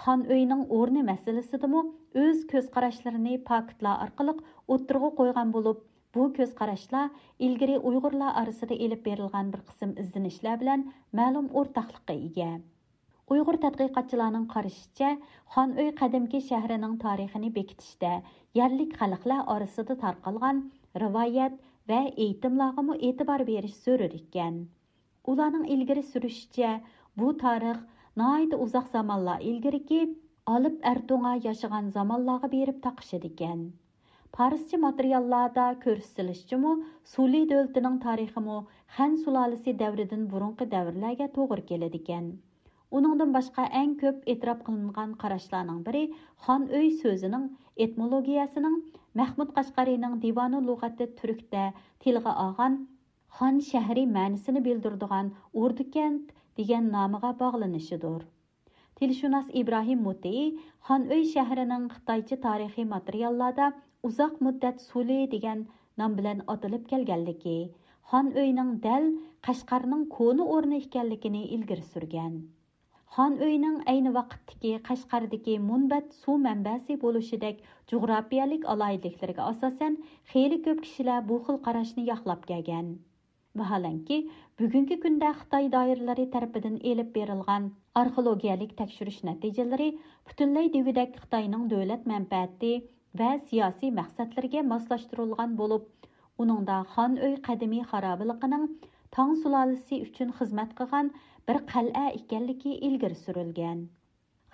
خان ئۆيىنىڭ ئورنى مەسىلىسىدىمۇ ئۆز كۆز قاراشلىرىنى پاكىتلار ئارقىلىق ئوتتۇرىغا قويغان بولۇپ، بۇ كۆز قاراشلار ئىلگىرى ئۇيغۇرلار ئارىسىدا ئېلىپ بېرىلغان بىر قىسىم ئىزدىنىشلەر بىلەن مەلۇم ئورتاقلىققا ئىگە. ئۇيغۇر تەتقىقاتچىلارنىڭ قارىشىچە، خان ئۆي قەدىمكى شەھىرىنىڭ تارىخىنى بېكىتىشتە يەرلىك خەلقلەر ئارىسىدا تارقالغان رىۋايەت ۋە ئېيتىملارغىمۇ ئېتىبار بېرىش زۆرۈر ئىكەن. ئۇلارنىڭ ئىلگىرى سۈرۈشىچە، بۇ تارىخ ناھايىتى ئۇزاق زامانلار ئىلگىرىكى ئالىپ ئەرتوڭا ياشىغان زامانلارغا بېرىپ تاقىشىدىكەن. پارسچە ماتېرىياللاردا كۆرسىتىلىشىچىمۇ، سۇلى دۆلىتىنىڭ تارىخىمۇ خەن سۇلالىسى دەۋرىدىن بۇرۇنقى دەۋرلەرگە توغرا كېلىدىكەن. ئۇنىڭدىن باشقا، ئەڭ كۆپ ئېتىراپ قىلىنغان قاراشلارنىڭ بىرى خان ئۆي سۆزىنىڭ ئېتىمولوگىيەسىنىڭ مەھمۇد قەشقەرىنىڭ دىۋانۇ لۇغەتى تۈركتە تىلغا ئالغان خان شەھىرى مەنىسىنى بىلدۈرىدىغان ئوردۇكەنت دېگەن نامىغا باغلىنىشىدۇر. تىلشۇناس ئىبراھىم مۇتىئى خان ئۆي شەھىرىنىڭ خىتايچە تارىخىي ماتېرىياللاردا ئۇزاق مۇددەت سۇلى دېگەن نام بىلەن ئاتىلىپ كەلگەنلىكى، خان ئۆينىڭ دەل قەشقەرنىڭ كونا ئورنى ئىكەنلىكىنى ئىلگىرى سۈرگەن. خان ئۆينىڭ ئەينى ۋاقىتتىكى قەشقەردىكى مۇنبەت سۇ مەنبەسى بولۇشىدەك جۇغراپىيەلىك ئالاھىدىلىكلىرىگە ئاساسەن، خېلى كۆپ كىشىلەر بۇ خىل قاراشنى ياقلاپ كەلگەن. ۋاھالەنكى، بۈگۈنكى كۈندە خىتاي دائىرىلىرى تەرىپىدىن ئېلىپ بېرىلغان ئارخېئولوگىيەلىك تەكشۈرۈش نەتىجىلىرى پۈتۈنلەي دېگۈدەك خىتاينىڭ دۆلەت مەنپەئەتى ۋە سىياسىي مەقسەتلىرىگە ماسلاشتۇرۇلغان بولۇپ، ئۇنىڭدا خان ئۆي قەدىمىي خارابىلىقىنىڭ تاڭ سۇلالىسى ئۈچۈن خىزمەت قىلغان بىر قەلئە ئىكەنلىكى ئىلگىرى سۈرۈلگەن.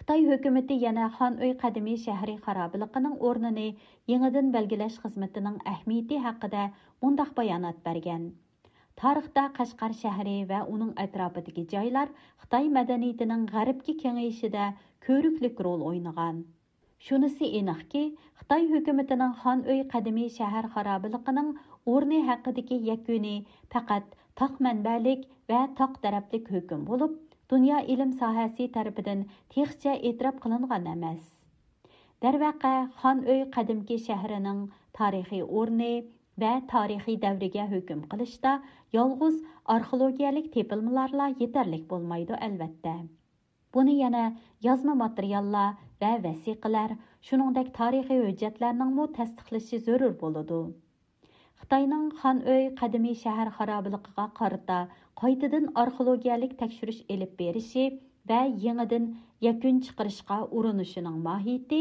خىتاي ھۆكۈمىتى يەنە خان ئۆي قەدىمىي شەھىرى خارابىلىقىنىڭ ئورنىنى يېڭىدىن بەلگىلەش خىزمىتىنىڭ ئەھمىيىتى ھەققىدە مۇنداق بايانات بەرگەن: تارىختا قەشقەر شەھىرى ۋە ئۇنىڭ ئەتراپىدىكى جايلار خىتاي مەدەنىيىتىنىڭ غەربكە كېڭىيىشىدە كۆرۈكلۈك رول ئوينىغان. شۇنىسى ئېنىقكى، خىتاي ھۆكۈمىتىنىڭ خان ئۆي قەدىمىي شەھەر خارابىلىقىنىڭ ئورنى ھەققىدىكى يەكۈنى پەقەت تاق مەنبەلىك ۋە تاق تەرەپلىك ھۆكۈم بولۇپ، دۇنيا ئىلىم ساھەسى تەرىپىدىن تېخىچە ئېتىراپ قىلىنغان ئەمەس. دەرۋەقە، خان ئۆي قەدىمكى شەھىرىنىڭ تارىخىي ئورنى ۋە تارىخىي دەۋرىگە ھۆكۈم قىلىشتا يالغۇز ئارخېئولوگىيەلىك تېپىلمىلارلا يېتەرلىك بولمايدۇ، ئەلۋەتتە. بۇنى يەنە يازما ماتېرىياللار ۋە ۋەسىقىلەر، شۇنىڭدەك تارىخىي ھۆججەتلەرنىڭمۇ تەستىقلىشى زۆرۈر بولىدۇ. خىتاينىڭ خان ئۆي قەدىمىي شەھەر خارابىلىقىغا قارىتا قايتىدىن ئارخېئولوگىيەلىك تەكشۈرۈش ئېلىپ بېرىشى ۋە يېڭىدىن يەكۈن چىقىرىشقا ئۇرۇنۇشىنىڭ ماھىيىتى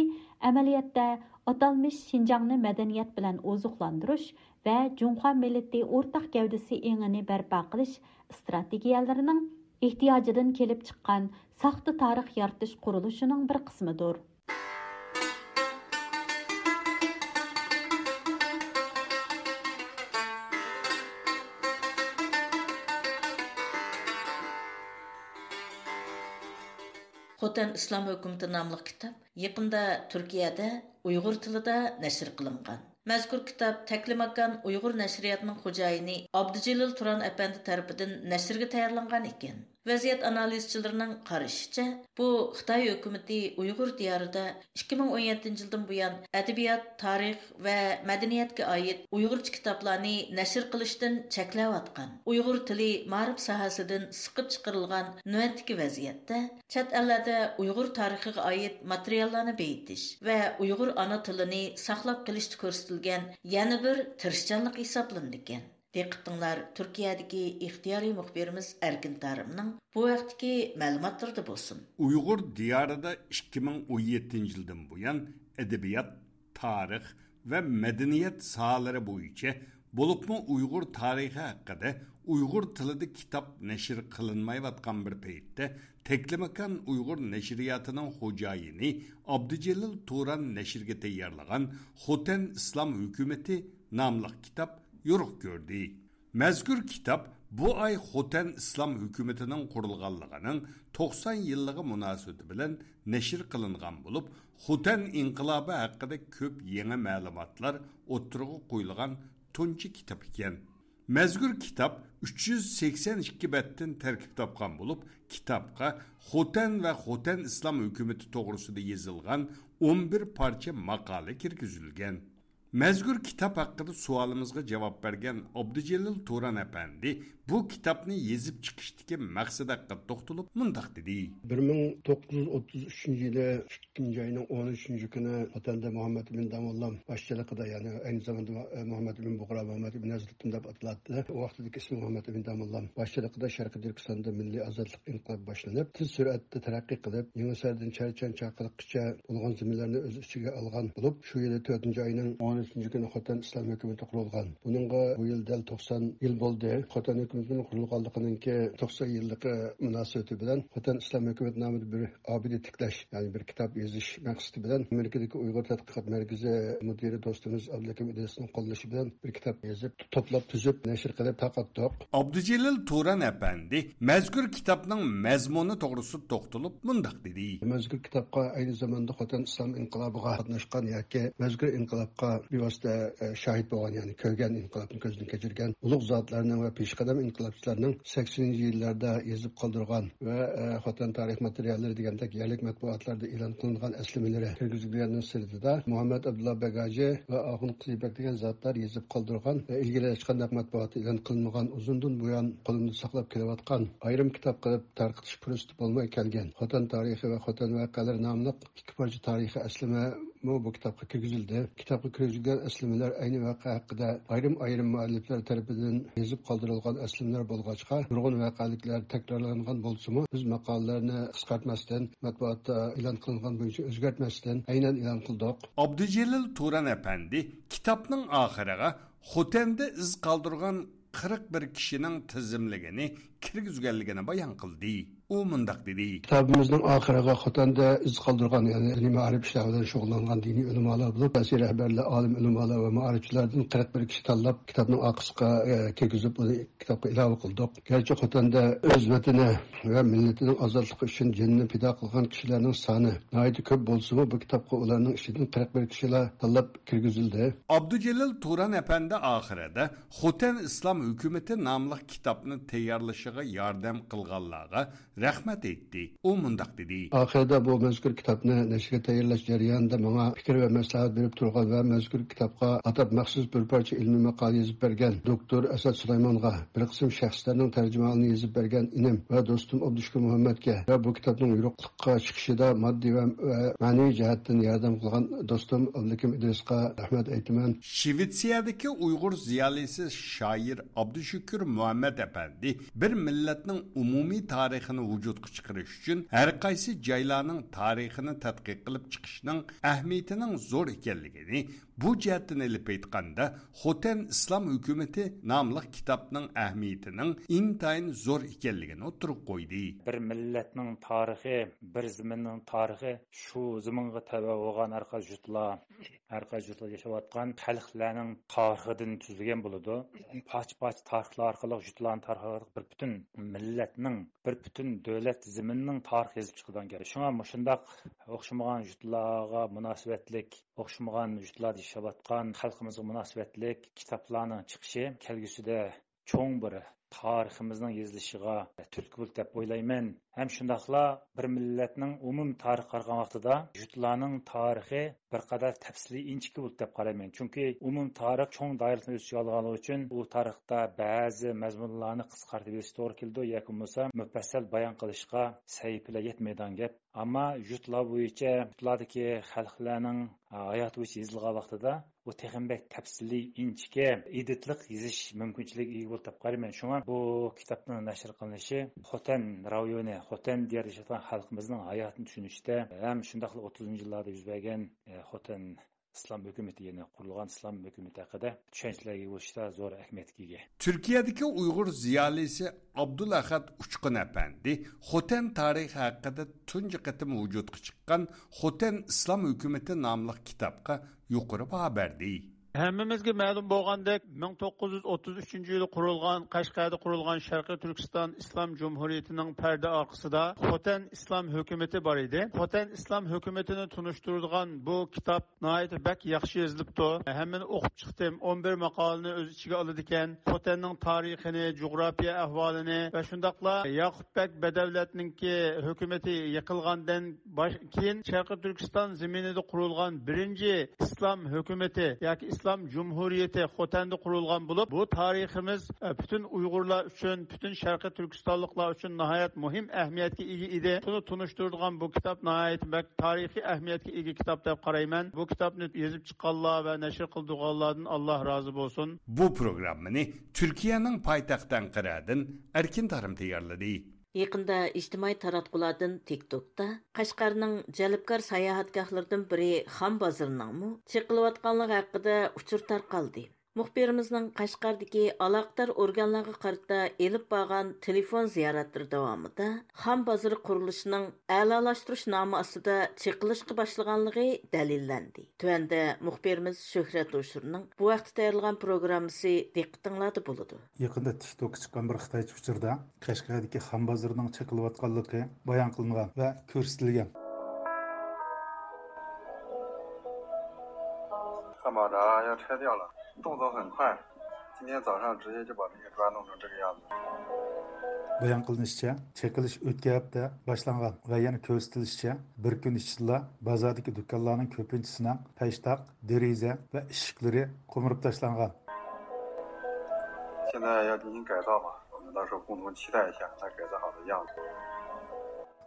ئەمەلىيەتتە ئاتالمىش شىنجاڭنى مەدەنىيەت بىلەن ئوزۇقلاندۇرۇش ۋە جۇڭخۇا مىللىتى ئورتاق گەۋدىسى ئېڭىنى بەرپا قىلىش ئىستراتېگىيەلىرىنىڭ ئېھتىياجىدىن كېلىپ چىققان ساختا تارىخ يارىتىش قۇرۇلۇشىنىڭ بىر قىسمىدۇر. خوتەن ئىسلام ھۆكۈمىتى ناملىق كىتاب يېقىندا تۈركىيەدە ئۇيغۇر تىلىدا نەشر قىلىنغان. مەزكۇر كىتاب تەكلىماكان ئۇيغۇر نەشرىياتىنىڭ خوجايىنى ئابدۇجېلىل تۇران ئەپەندى تەرىپىدىن نەشرگە تەييارلانغان ئىكەن. ۋەزىيەت ئانالىزچىلىرىنىڭ قارىشىچە، بۇ خىتاي ھۆكۈمىتى ئۇيغۇر دىيارىدا ئىككى مىڭ ئون يەتتىنچى يىلدىن بۇيان ئەدەبىيات، تارىخ ۋە مەدەنىيەتكە ئائىت ئۇيغۇرچە كىتابلارنى نەشر قىلىشتىن چەكلەۋاتقان، ئۇيغۇر تىلى مائارىپ ساھەسىدىن سىقىپ چىقىرىلغان نۆۋەتتىكى ۋەزىيەتتە، چەت ئەللەردە ئۇيغۇر تارىخىغا ئائىت ماتېرىياللارنى بېيىتىش ۋە ئۇيغۇر ئانا تىلىنى ساقلاپ قېلىشتا كۆرسىتىلگەن يەنە بىر تىرىشچانلىق ھېسابلىنىدىكەن. دىققىتىڭلار تۈركىيەدىكى ئىختىيارىي مۇخبىرىمىز ئەركىن تارىمنىڭ بۇ ھەقتىكى مەلۇماتلىرىدا بولسۇن. ئۇيغۇر دىيارىدا ئىككى مىڭ ئون يەتتىنچى يىلدىن بۇيان ئەدەبىيات، تارىخ ۋە مەدەنىيەت ساھەلىرى بويىچە، بولۇپمۇ ئۇيغۇر تارىخى ھەققىدە ئۇيغۇر تىلىدا كىتاب نەشر قىلىنمايۋاتقان بىر پەيتتە، تەكلىماكان ئۇيغۇر نەشرىياتىنىڭ خوجايىنى ئابدۇجېلىل تۇران نەشرگە تەييارلىغان خوتەن ئىسلام ھۆكۈمىتى ناملىق كىتاب يورۇق كۆردى. مەزكۇر كىتاب بۇ ئاي خوتەن ئىسلام ھۆكۈمىتىنىڭ قۇرۇلغانلىقىنىڭ توقسان يىللىقى مۇناسىۋىتى بىلەن نەشر قىلىنغان بولۇپ، خوتەن ئىنقىلابى ھەققىدە كۆپ يېڭى مەلۇماتلار ئوتتۇرىغا قويۇلغان تۇنجى كىتاب ئىكەن. مەزكۇر كىتاب ئۈچ يۈز سەكسەن ئىككى بەتتىن تەركىب تاپقان بولۇپ، كىتابقا خوتەن ۋە خوتەن ئىسلام ھۆكۈمىتى توغرىسىدا يېزىلغان ئون بىر پارچە ماقالە كىرگۈزۈلگەن. مەزكۇر كىتاب ھەققىدە سوئالىمىزغا جاۋاب بەرگەن ئابدۇجېلىل تۇران ئەپەندى بۇ كىتابنى يېزىپ چىقىشتىكى مەقسەت ھەققىدە توختىلىپ مۇنداق دېدى. بىر مىڭ توققۇز يۈز ئوتتۇز ئۈچىنچى يىلى ئىككىنچى ئاينىڭ ئون ئۈچىنچى كۈنى خوتەندە مۇھەممەد ئىمىن داموللام باشچىلىقىدا، يەنى ئەينى زاماندا مۇھەممەد ئىمىن بۇغرا، مۇھەممەد ئىمىن ھەزرىتىم دەپ ئاتىلاتتى. ئۇ ۋاقتىدىكى ئىسمى مۇھەممەد ئىمىن داموللام باشچىلىقىدا شەرقىي تۈركىستاندا مىللىي ئازادلىق ئىنقىلابى باشلىنىپ، تېز سۈرئەتتە تەرەققىي قىلىپ، يېڭىساردىن چەرچەن چاقىلىققىچە بولغان زېمىنلەرنى ئۆز ئىچىگە ئالغان بولۇپ، شۇ يىلى تۆتىنچى ئاينىڭ ئون ئۈچىنچى كۈنى خوتەن ئىسلام ھۆكۈمىتى قۇرۇلغان. بۇنىڭغا بۇ يىل دەل توقسان يىل بولدى. خوتەن ھۆكۈمىتىنىڭ قۇرۇلغانلىقىنىڭكى توقسان يىللىقى مۇناسىۋىتى بىلەن خوتەن ئىسلام ھۆكۈمىتى نامىدا بىر ئابىدە تىكلەش، يەنى بىر كىتاب يېزىش مەقسىتى بىلەن ئامېرىكىدىكى ئۇيغۇر تەتقىقات مەركىزى مۇدىرى دوستىمىز ئابلىكىم ئىدرىسنىڭ قوللىشى بىلەن بىر كىتاب يېزىپ، توپلاپ، تۈزۈپ، نەشر قىلىپ تارقاتتۇق. ئابدۇجېلىل تۇران ئەپەندى مەزكۇر كىتابنىڭ مەزمۇنى توغرىسىدا توختىلىپ مۇنداق دېدى. مەزكۇر كىتابقا ئەينى زاماندا خوتەن ئىسلام ئىنقىلابىغا قاتناشقان ياكى مەزكۇر ئىنقىلابقا بىۋاسىتە، ئە، شاھىت بولغان، يەنى كۆرگەن، ئىنقىلابنى كۆزدىن كەچۈرگەن ئۇلۇغ زاتلارنىڭ ۋە پېشقەدەم ئىنقىلابچىلارنىڭ سەكسىنىنچى يىللاردا يېزىپ قالدۇرغان ۋە، ئە، خوتەن تارىخ ماتېرىياللىرى دېگەندەك يەرلىك مەتبۇئاتلاردا ئېلان قىلىنغان ئەسلىمىلىرى كىرگۈزۈلگەننىڭ سىرتىدا، مۇھەممەد ئابدۇللا بەگ ھاجى ۋە ئاخۇن قىزىبەگ دېگەن زاتلار يېزىپ قالدۇرغان ۋە ئىلگىرى ھېچقانداق مەتبۇئاتتا ئېلان قىلىنمىغان، ئۇزۇندىن بۇيان قولۇمدا ساقلاپ كېلىۋاتقان ئايرىم كىتاب قىلىپ تارقىتىش پۇرسىتى بولماي كەلگەن خوتەن تارىخى ۋە خوتەن ۋەقەلىرى ناملىق ئىككى پارچە تارىخىي ئەسلىمە مۇ بۇ كىتابقا كىرگۈزۈلدى. كىتابقا كىرگۈزۈلگەن ئەسلىمىلەر ئەينى ۋەقە ھەققىدە ئايرىم-ئايرىم مۇئەللىپلەر تەرىپىدىن يېزىپ قالدۇرۇلغان ئەسلىمىلەر بولغاچقا، نۇرغۇن ۋەقەلىكلەر تەكرارلانغان بولسىمۇ، بىز ماقالىلەرنى قىسقارتماستىن، مەتبۇئاتتا ئېلان قىلىنغان بويىچە ئۆزگەرتمەستىن ئەينەن ئېلان قىلدۇق. ئابدۇجېلىل تۇران ئەپەندى كىتابنىڭ ئاخىرىغا خوتەندە ئىز قالدۇرغان قىرىق بىر كىشىنىڭ تىزىملىكىنى كىرگۈزگەنلىكىنى بايان قىلدى. ئۇ مۇنداق دېدى. كىتابىمىزنىڭ ئاخىرىغا خوتەندە ئىز قالدۇرغان، يەنى دىنىي مائارىپ ئىشلار بىلەن شۇغۇللانغان دىنىي ئۆلىمالار بولۇپ، سىياسىي رەھبەرلەر، ئالىم ئۆلىمالار ۋە مائارىپچىلاردىن قىرىق بىر كىشى تاللاپ، كىتابنىڭ ئارقىسىغا، ئە، كىرگۈزۈپ، ئۇنى كىتابقا ئىلاۋە قىلدۇق. گەرچە خوتەندە ئۆز ۋەتىنى ۋە مىللىتىنىڭ ئازادلىقى ئۈچۈن جېنىنى پىدا قىلغان كىشىلەرنىڭ سانى ناھايىتى كۆپ بولسىمۇ، بۇ كىتابقا ئۇلارنىڭ ئىچىدىن قىرىق بىر كىشىلا تاللاپ كىرگۈزۈلدى. ئابدۇجېلىل تۇران ئەپەندى ئاخىرىدا خوتەن ئىسلام ھۆكۈمىتى ناملىق كىتابنى تەييارلىشىغا ياردەم قىلغانلارغا رەھمەت ئېيتتى. ئۇ مۇنداق دېدى. ئاخىرىدا بۇ مەزكۇر كىتابنى نەشرگە تەييارلاش جەريانىدا ماڭا پىكىر ۋە مەسلىھەت بېرىپ تۇرغان ۋە مەزكۇر كىتابقا ئاتاپ مەخسۇس بىر پارچە ئىلمىي ماقالە يېزىپ بەرگەن دوكتور ئەسەت سۇلايمانغا، بىر قىسىم شەخسلەرنىڭ تەرجىمىھالىنى يېزىپ بەرگەن ئىنىم ۋە دوستۇم ئابدۇشۈكۈر مۇھەممەتكە ۋە بۇ كىتابنىڭ يورۇقلۇققا چىقىشىدا ماددىي ۋە، ۋە مەنىۋى جەھەتتىن ياردەم قىلغان دوستۇم ئابلىكىم ئىدرىسقا رەھمەت ئېيتىمەن. شىۋېتسىيەدىكى ئۇيغۇر زىيالىيسى شائىر ئابدۇشۈكۈر مۇھەممەت ئەپەندى بىر مىللەتنىڭ ئومۇمىي تارىخىنى ۋۇجۇدقا چىقىرىش ئۈچۈن ھەر قايسى جايلارنىڭ تارىخىنى تەتقىق قىلىپ چىقىشنىڭ ئەھمىيىتىنىڭ زور ئىكەنلىكىنى، بۇ جەھەتتىن ئېلىپ ئېيتقاندا، خوتەن ئىسلام ھۆكۈمىتى ناملىق كىتابنىڭ ئەھمىيىتىنىڭ ئىنتايىن زور ئىكەنلىكىنى ئوتتۇرىغا قويدى. بىر مىللەتنىڭ تارىخى، بىر زېمىننىڭ تارىخى، شۇ زېمىنغا تەۋە بولغان ھەر قايسى يۇرتلار، ھەر قايسى يۇرتلاردا ياشاۋاتقان خەلقلەرنىڭ تارىخىدىن تۈزۈلگەن بولىدۇ. پارچە-پارچە تارىخلار ئارقىلىق، يۇرتلارنىڭ تارىخى ئارقىلىق بىر پۈتۈن مىللەتنىڭ، بىر پۈتۈن دۆلەت زېمىنىنىڭ تارىخى يېزىپ چىقىدىغان گەپ. شۇڭا مۇشۇنداق ئوخشىمىغان يۇرتلارغا مۇناسىۋەتلىك، ئوخشىمىغان يۇرتلاردا ياشاۋاتقان خەلقىمىزغا مۇناسىۋەتلىك كىتابلارنىڭ چىقىشى كەلگۈسىدە چوڭ بىر تارىخىمىزنىڭ يېزىلىشىغا تۈرتكە بولىدۇ دەپ ئويلايمەن. ھەم شۇنداقلا بىر مىللەتنىڭ ئومۇمىي تارىخىغا قارىغان ۋاقتىدا يۇرتلارنىڭ تارىخى بىر قەدەر تەپسىلىي ئىنچىكە بولىدۇ دەپ قارايمەن. چۈنكى ئومۇمىي تارىخ چوڭ دائىرىسىنى ئۆز ئىچىگە ئالغانلىقى ئۈچۈن ئۇ تارىختا بەزى مەزمۇنلارنى قىسقارتىپ يېزىشقا توغرا كېلىدۇ ياكى بولمىسا مۇپەسسەل بايان قىلىشقا سەھىپىلەر يەتمەيدىغان گەپ. ئەمما يۇرتلار بويىچە، يۇرتلاردىكى خەلقلەرنىڭ ھاياتى بويىچە يېزىلغان ۋاقتىدا، ئۇ تېخىمۇ بەك تەپسىلىي، ئىنچىكە، ئېدىتلىق يېزىش مۇمكىنچىلىكىگە ئىگە بولدى دەپ قارايمەن. شۇڭا بۇ كىتابنىڭ نەشر قىلىنىشى خوتەن رايونى، خوتەن دىيارىدا ياشاۋاتقان خەلقىمىزنىڭ ھاياتىنى چۈشىنىشتە ھەم شۇنداقلا ئوتتۇزىنچى يىللاردا يۈز بەرگەن، ئە، خوتەن ئىسلام ھۆكۈمىتى، يەنى قۇرۇلغان ئىسلام ھۆكۈمىتى ھەققىدە چۈشەنچىلەرگە ئېرىشىشتە زور ئەھمىيەتكە ئىگە. تۈركىيەدىكى ئۇيغۇر زىيالىيسى ئابدۇلئەخەت ئۇچقۇن ئەپەندى خوتەن تارىخى ھەققىدە تۇنجى قېتىم ۋۇجۇدقا چىققان خوتەن ئىسلام ھۆكۈمىتى ناملىق كىتابقا يۇقىرى باھا بەردى. ھەممىمىزگە مەلۇم بولغاندەك، مىڭ توققۇز يۈز ئوتتۇز ئۈچىنچى يىلى قۇرۇلغان، قەشقەردە قۇرۇلغان شەرقىي تۈركىستان ئىسلام جۇمھۇرىيىتىنىڭ پەردە ئارقىسىدا خوتەن ئىسلام ھۆكۈمىتى بار ئىدى. خوتەن ئىسلام ھۆكۈمىتىنى تونۇشتۇرىدىغان بۇ كىتاب ناھايىتى بەك ياخشى يېزىلىپتۇ. ھەممىنى ئوقۇپ چىقتىم. ئون بىر ماقالىنى ئۆز ئىچىگە ئالىدىكەن. خوتەننىڭ تارىخىنى، جۇغراپىيە ئەھۋالىنى ۋە شۇنداقلا ياقۇپ بەگ بەدەۋلەتنىڭكى ھۆكۈمىتى يىقىلغاندىن باش-، كېيىن شەرقىي تۈركىستان زېمىنىدا قۇرۇلغان بىرىنچى ئىسلام ھۆكۈمىتى ياكى ئىسلام جۇمھۇرىيىتى خوتەندە قۇرۇلغان بولۇپ، بۇ تارىخىمىز، ئە، پۈتۈن ئۇيغۇرلار ئۈچۈن، پۈتۈن شەرقىي تۈركىستانلىقلار ئۈچۈن ناھايەت مۇھىم ئەھمىيەتكە ئىگە ئىدى. شۇنى تونۇشتۇرىدىغان بۇ كىتاب ناھايىتى بەك تارىخىي ئەھمىيەتكە ئىگە كىتاب دەپ قارايمەن. بۇ كىتابنى يېزىپ چىققانلار ۋە نەشر قىلدۇرغانلاردىن ئاللا رازى بولسۇن. بۇ پروگراممىنى تۈركىيەنىڭ پايتەختى ئەنقەرەدىن ئەركىن تارىم تەييارلىدى. يېقىندا ئىجتىمائىي تاراتقۇلاردىن تىك توكتا قەشقەرنىڭ جەلپكار ساياھەتگاھلىرىدىن بىرى خان بازىرىنىڭمۇ چېقىلىۋاتقانلىقى ھەققىدە ئۇچۇر تارقالدى. مۇخبىرىمىزنىڭ قەشقەردىكى ئالاقىدار ئورگانلارغا قارىتا ئېلىپ بارغان تېلېفون زىيارەتلىرى داۋامىدا خان بازىرى قۇرۇلۇشىنىڭ ئەلالاشتۇرۇش نامى ئاستىدا چېقىلىشقا باشلىغانلىقى دەلىللەندى. تۆۋەندە مۇخبىرىمىز شۆھرەت ھوشۇرنىڭ بۇ ھەقتە تەييارلىغان پروگراممىسى دىققىتىڭلاردا بولىدۇ. يېقىندا تىك توكقا چىققان بىر خىتايچە ئۇچۇردا قەشقەردىكى خان بازىرىنىڭ چېقىلىۋاتقانلىقى بايان قىلىنغان ۋە كۆرسىتىلگەن. 干嘛的啊？要拆掉了？动作很快，今天早上直接就把那些砖弄成这个样子。 بايان قىلىنىشىچە، چېقىلىش ئۆتكەن ھەپتە باشلانغان ۋە يەنە كۆرسىتىلىشىچە، بىر كۈن ئىچىدىلا بازاردىكى دۇكانلارنىڭ كۆپىنچىسىنىڭ پەشتاق، دېرىزە ۋە ئىشىكلىرى قومۇرۇپ تاشلانغان. 现在要进行改造嘛，我们到时候共同期待一下它改造好的样子。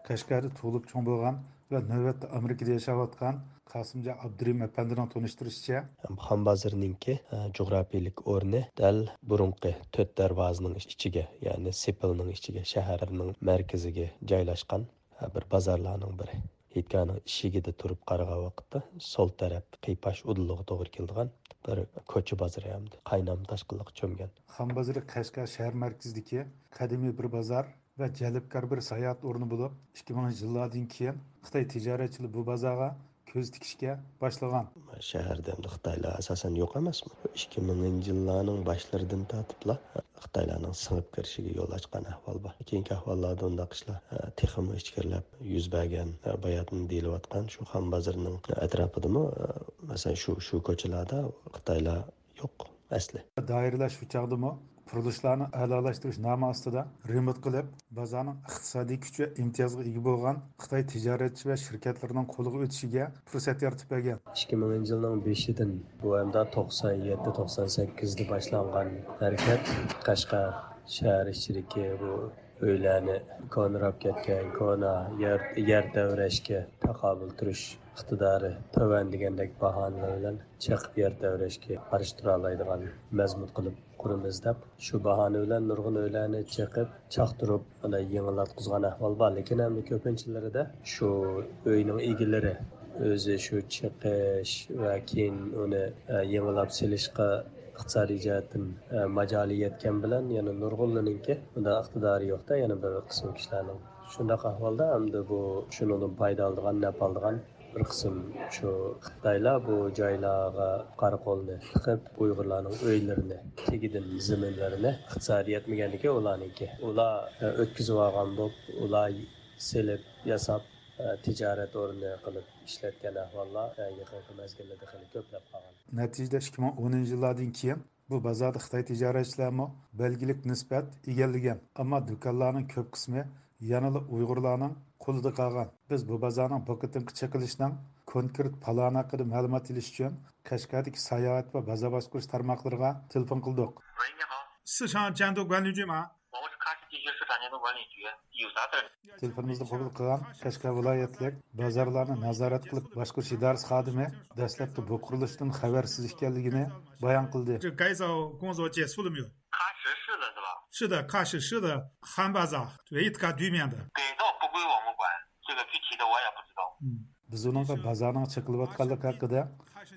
قەشقەردە تۇغۇلۇپ چوڭ بولغان ۋە نۆۋەتتە ئامېرىكىدا ياشاۋاتقان قاسىمجان ئابدۇرېھىم ئەپەندىنىڭ تونۇشتۇرۇشىچە، خان بازىرىنىڭكى، ئە، جۇغراپىيىلىك ئورنى دەل بۇرۇنقى تۆت دەرۋازىنىڭ ئىچىگە، يەنى سېپىلنىڭ ئىچىگە، شەھەرنىڭ مەركىزىگە جايلاشقان، ئە، بىر بازارلارنىڭ بىرى. ھېيتگاھنىڭ ئىشىكىدە تۇرۇپ قارىغان ۋاقىتتا سول تەرەپ قىيپاش ئۇدۇلىغا توغرا كېلىدىغان بىر كوچا بازىرى ھەمدە قاينام تاشقىنلىققا چۆمگەن. خان بازىرى قەشقەر شەھەر مەركىزىدىكى قەدىمىي بىر بازار ۋە جەلپكار بىر ساياھەت ئورنى بولۇپ، ئىككى مىڭىنچى يىللاردىن كېيىن خىتاي تىجارەتچىلىرى بۇ بازارغا كۆز تىكىشكە باشلىغان. شەھەردە ئەمدى خىتايلار ئاساسەن يوق ئەمەسمۇ؟ ئىككى مىڭىنچى يىللارنىڭ باشلىرىدىن تارتىپلا خىتايلارنىڭ سىڭىپ كىرىشىگە يول ئاچقان ئەھۋال بار. كېيىنكى ئەھۋاللاردا ئۇنداق ئىشلار، ئە، تېخىمۇ ئىچكىرىلەپ يۈز بەرگەن، ئە، باياتىن دېيىلىۋاتقان شۇ خان بازىرىنىڭ ئەتراپىدىمۇ، ئە، مەسىلەن، شۇ، شۇ كوچىلاردا خىتايلار يوق ئەسلى. دائىرىلەر شۇ چاغدىمۇ قۇرۇلۇشلارنى ئەلالاشتۇرۇش نامى ئاستىدا رېمونت قىلىپ، بازارنىڭ ئىقتىسادىي كۈچ ۋە ئىمتىيازغا ئىگە بولغان خىتاي تىجارەتچى ۋە شىركەتلىرىنىڭ قولىغا ئۆتۈشىگە پۇرسەت يارىتىپ بەرگەن. ئىككى مىڭىنچى يىلنىڭ بېشىدىن بۇ ئەمدى توقسان يەتتە، توقسان سەككىزدە باشلانغان ھەرىكەت قەشقەر شەھەر ئىچىدىكى بۇ ئۆيلەرنى كونىراپ كەتكەن، كونا يەر، يەر تەۋرەشكە تاقابىل تۇرۇش ئىقتىدارى تۆۋەن دېگەندەك باھانىلەر بىلەن چېقىپ يەر تەۋرەشكە قارشى تۇرالايدىغان مەزمۇت قىلىپ قۇرىمىز دەپ، شۇ باھانە بىلەن نۇرغۇن ئۆيلەرنى چېقىپ، چاقتۇرۇپ، ئانداق يېڭىلاتقۇزغان ئەھۋال بار. لېكىن ئەمدى كۆپىنچىلىرىدە شۇ ئۆينىڭ ئىگىلىرى ئۆزى شۇ چېقىش ۋە كېيىن ئۇنى، ئە، يېڭىلاپ سېلىشقا ئىقتىسادىي جەھەتتىن، ئە، ماجالى يەتكەن بىلەن يەنە نۇرغۇنلىرىنىڭكى بۇنداق ئىقتىدارى يوق-دە، يەنە بىر قىسىم كىشىلەرنىڭ. شۇنداق ئەھۋالدا ئەمدى بۇ شۇنىڭدىن پايدا ئالىدىغان، نەپ ئالىدىغان بىر قىسىم شۇ خىتايلار بۇ جايلارغا قارا قولنى تىقىپ، ئۇيغۇرلارنىڭ ئۆيلىرىنى، تېگىدىن زېمىنلىرىنى، ئىقتىسادى يەتمىگەندىكىن ئۇلارنىڭكى، ئۇلار، ئە، ئۆتكۈزۈۋالغان بولۇپ، ئۇلار سېلىپ، ياساپ، ئە، تىجارەت ئورنى قىلىپ ئىشلەتكەن ئەھۋاللار، ئە، يېقىنقى مەزگىللەردە خېلى كۆپلەپ قالغان. نەتىجىدە ئىككى مىڭ ئونىنچى يىللاردىن كېيىن بۇ بازاردا خىتاي تىجارەتچىلەرمۇ بەلگىلىك نىسبەت ئىگىلىگەن، ئەمما دۇكانلارنىڭ كۆپ قىسمى يەنىلا ئۇيغۇرلارنىڭ قولىدا قالغان. بىز بۇ بازارنىڭ بۇ قېتىمقى چېقىلىشىنىڭ كونكرېت پالانى ھەققىدە مەلۇمات ئېلىش ئۈچۈن قەشقەردىكى ساياھەت ۋە بازار باشقۇرۇش تارماقلىرىغا تېلېفون قىلدۇق. 喂，你好。 市场监督管理局吗？ 我是喀什地区市场监督管理局，有啥事儿？ تېلېفونىمىزنى قوبۇل قىلغان قەشقەر ۋىلايەتلىك بازارلارنى نازارەت قىلىپ باشقۇرۇش ئىدارىسى خادىمى دەسلەپتە بۇ قۇرۇلۇشتىن خەۋەرسىز ئىكەنلىكىنى بايان قىلدى. 这改造工作结束了没有？ 喀什市的是吧？ 是的，喀什市的韩巴扎，对，它对面的。 改造不归我们管，这个具体的我也不知道。 嗯。 بىز ئۇنىڭغا بازارنىڭ چېقىلىۋاتقانلىقى ھەققىدە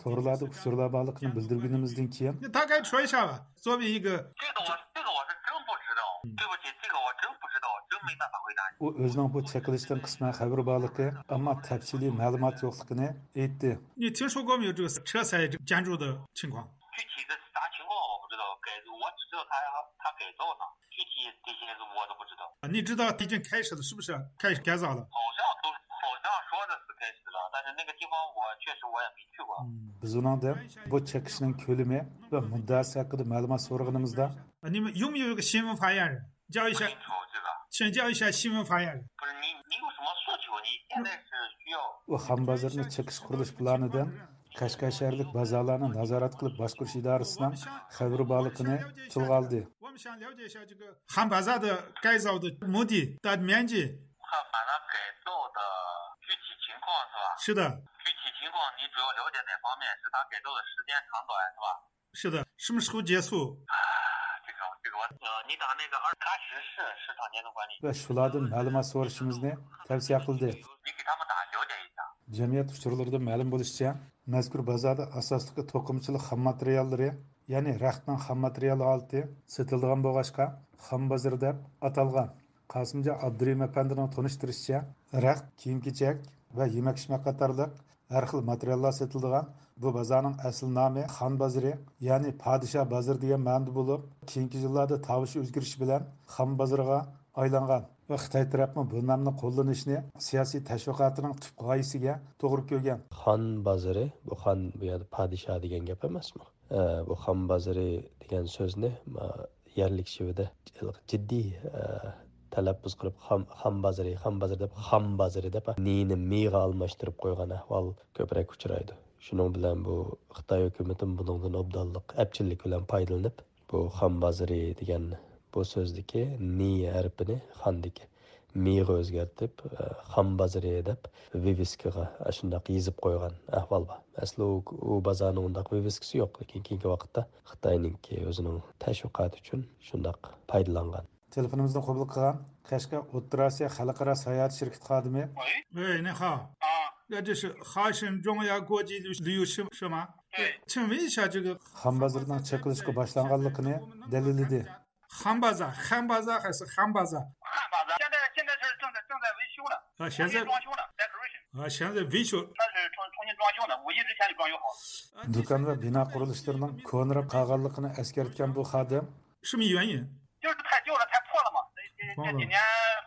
تورلاردا ئۇچۇرلار بارلىقىنى بىلدۈرگىنىمىزدىن كېيىن، 你大概说一下吧，作为一个 这个我这个我是真不知道，对不起，这个我真不知道，真没办法回答你。 ئۇ ئۆزىنىڭ بۇ چېقىلىشتىن قىسمەن خەۋىرى بارلىقى، ئەمما تەپسىلىي مەلۇمات يوقلۇقىنى ئېيتتى. 你听说过没有这个车材建筑的情况？ 具体的啥情况我不知道，改我只知道他他改造呢，具体这些我都不知道。 你知道已经开始了，是不是？开始改造了。 好像都好像说的是开始了，但是那个地方我确实我也没去过。 ھىم. بىز ئۇنىڭدىن بۇ چېقىشنىڭ كۆلىمى ۋە مۇددىئاسى ھەققىدە مەلۇمات سورىغىنىمىزدا، 你们有没有一个新闻发言人？叫一下， 请教一下新闻发言人。 不是你你有什么诉求？你现在是需要 ئۇ خان بازىرىنى چېقىش قۇرۇلۇش پىلانىدىن قەشقەر شەھەرلىك بازارلارنى نازارەت قىلىپ باشقۇرۇش ئىدارىسىنىڭ خەۋىرى بارلىقىنى تىلغا ئالدى. 我们想了解一下这个 خان بازاردا改造的目的、大面积。 看马上改造的具体情况是吧？ 是的。 具体情况你主要了解哪方面？是他改造的时间长短是吧？ 是的。 什么时候结束？ 这个这个我呃，你打那个二喀什市市场监督管理 ۋە شۇلاردىن مەلۇمات سورىشىمىزنى تەۋسىيە قىلدى. 你给他们打了解一下。 جەمئىيەت ئۇچۇرلىرىدىن مەلۇم بولۇشىچە، مەزكۇر بازاردا ئاساسلىقى توقۇمىچىلىق خام ماتېرىياللىرى، يەنى رەختنىڭ خام ماتېرىيال ھالىتى سېتىلىدىغان بولغاچقا، خام بازىرى دەپ ئاتالغان. قاسىمجان ئابدۇرېھىم ئەپەندىنىڭ تونۇشتۇرۇشىچە، رەخت، كىيىم-كېچەك ۋە يېمەك-ئىچمەك قاتارلىق ھەر خىل ماتېرىياللار سېتىلىدىغان بۇ بازارنىڭ ئەسلى نامى خان بازىرى، يەنى پادىشاھ بازىرى دېگەن مەنىدە بولۇپ، كېيىنكى يىللاردا تاۋۇش ئۆزگىرىشى بىلەن خان بازىرىغا ئايلانغان ۋە خىتاي تەرەپمۇ بۇ نامنى قوللىنىشنى سىياسىي تەشۋىقاتىنىڭ تۈپ غايىسىگە توغرا كۆرگەن. خان بازىرى، بۇ خان بۇ يەردە پادىشاھ دېگەن گەپ ئەمەسمۇ؟ ئە، بۇ خان بازىرى دېگەن سۆزنى، ما، يەرلىك شېۋىدە جىددىي، ئە، تەلەپپۇز قىلىپ، خام، خام بازىرى، خام بازىرى دەپ، خام بازىرى دەپ، نىنى مىغا ئالماشتۇرۇپ قويغان ئەھۋال كۆپرەك ئۇچرايدۇ. شۇنىڭ بىلەن بۇ خىتاي ھۆكۈمىتىمۇ بۇنىڭدىن ئوبدانلىق، ئەپچىللىك بىلەن پايدىلىنىپ، بۇ خان بازىرى دېگەن بۇ سۆزدىكى نى ھەرپىنى خاندىكى مىغا ئۆزگەرتىپ، ئە، خان بازىرى دەپ ۋىۋىسكىغا ئاشۇنداق يېزىپ قويغان ئەھۋال بار. ئەسلى ئۇ، ئۇ بازارنىڭ ئۇنداق ۋىۋىسكىسى يوق، لېكىن كېيىنكى ۋاقىتتا خىتاينىڭكى ئۆزىنىڭ تەشۋىقاتى ئۈچۈن شۇنداق پايدىلانغان. تېلېفونىمىزنى قوبۇل قىلغان قەشقەر ئوتتۇرا ئاسىيا خەلقئارا ساياھەت شىركىتى خادىمى. 喂，你好。啊。这是哈什中亚国际旅游是是吗？对。请问一下，这个 خان بازىرىنىڭ چېقىلىشقا باشلانغانلىقىنى دەلىللىدى. خان بازار، خان بازار 还是 خان بازار؟ 汉巴扎现在现在是正在正在维修呢，啊，现在重新装修呢，decoration。 啊，现在维修。 它是重重新装修呢，五一之前就装修好了。 دۇكان ۋە بىنا قۇرۇلۇشلىرىنىڭ كونىراپ قالغانلىقىنى ئەسكەرتكەن بۇ خادىم. 什么原因？ 就是太旧了，太破了嘛，这这这几年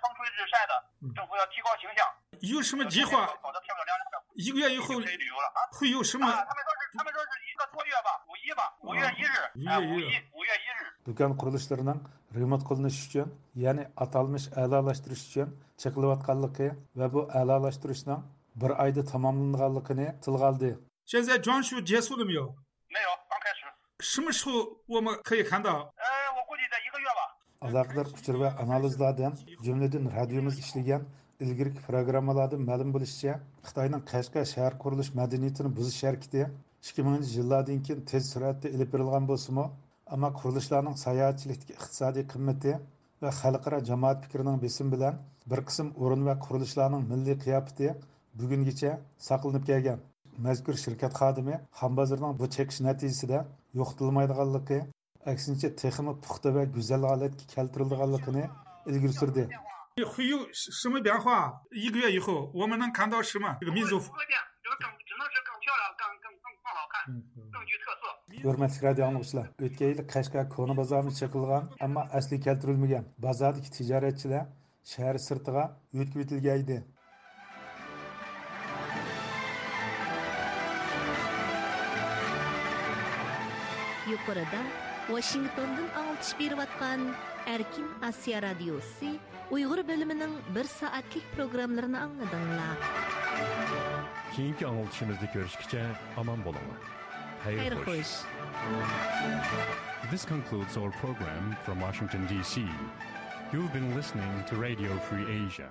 风吹日晒的，政府要提高形象， 有什么计划？ 搞得漂漂亮亮的， 一个月以后 可以旅游了啊。 会有什么？ 啊，他们说是他们说是一个多月吧，五一吧，五月一日， 5月1日。 哎，五一五月一日。 دۇكان قۇرۇلۇشلىرىنىڭ رېمونت قىلىنىش ئۈچۈن، يەنى ئاتالمىش ئەلالاشتۇرۇش ئۈچۈن چېقىلىۋاتقانلىقى ۋە بۇ ئەلالاشتۇرۇشنىڭ بىر ئايدا تاماملىنىدىغانلىقىنى تىلغا ئالدى. 现在装修结束了没有？ 没有，刚开始。 什么时候我们可以看到？ 呃，我估计在一个月吧。ئالاقىدار ئۇچۇر ۋە ئانالىزلاردىن، جۈملىدىن رادىيومىز ئىشلىگەن ئىلگىرىكى پروگراممىلاردىن مەلۇم بولۇشىچە، خىتاينىڭ قەشقەر شەھەر قۇرۇلۇش مەدەنىيىتىنى بۇزۇش ھەرىكىتى ئىككى مىڭىنچى يىللاردىن كېيىن تېز سۈرئەتتە ئېلىپ بېرىلغان بولسىمۇ، ئەمما قۇرۇلۇشلارنىڭ ساياھەتچىلىكتىكى ئىقتىسادىي قىممىتى ۋە خەلقئارا جامائەت پىكرىنىڭ بېسىمى بىلەن بىر قىسىم ئورۇن ۋە قۇرۇلۇشلارنىڭ مىللىي قىياپىتى بۈگۈنگىچە ساقلىنىپ كەلگەن. مەزكۇر شىركەت خادىمى خان بازىرىنىڭ بۇ چېقىش نەتىجىسىدە يوقىتىلمايدىغانلىقى، ئەكسىنچە، تېخىمۇ پۇختا ۋە گۈزەل ھالەتكە كەلتۈرۈلىدىغانلىقىنى ئىلگىرى سۈردى. 会有什么变化？一个月以后，我们能看到什么？这个民族。更具特色。 ھۆرمەتلىك رادىيو ئاڭلىغۇچىلار، ئۆتكەن يىلى قەشقەر كونا بازارىمۇ چېقىلغان، ئەمما ئەسلى كەلتۈرۈلمىگەن. بازاردىكى تىجارەتچىلەر شەھەر سىرتىغا ئۆتكۈۋېتىلگەن ئىدى. يۇقىرىدا ۋاشىنگتوندىن ئاڭلىتىش بېرىۋاتقان ئەركىن ئاسىيا رادىيوسى ئۇيغۇر بۆلۈمىنىڭ بىر سائەتلىك پروگراممىلىرىنى ئاڭلىدىڭلار. كېيىنكى ئاڭلىتىشىمىزدا كۆرۈشكىچە ئامان بولۇڭلار. خەير خوش. This concludes our program from Washington, D C. You've been listening to Radio Free Asia.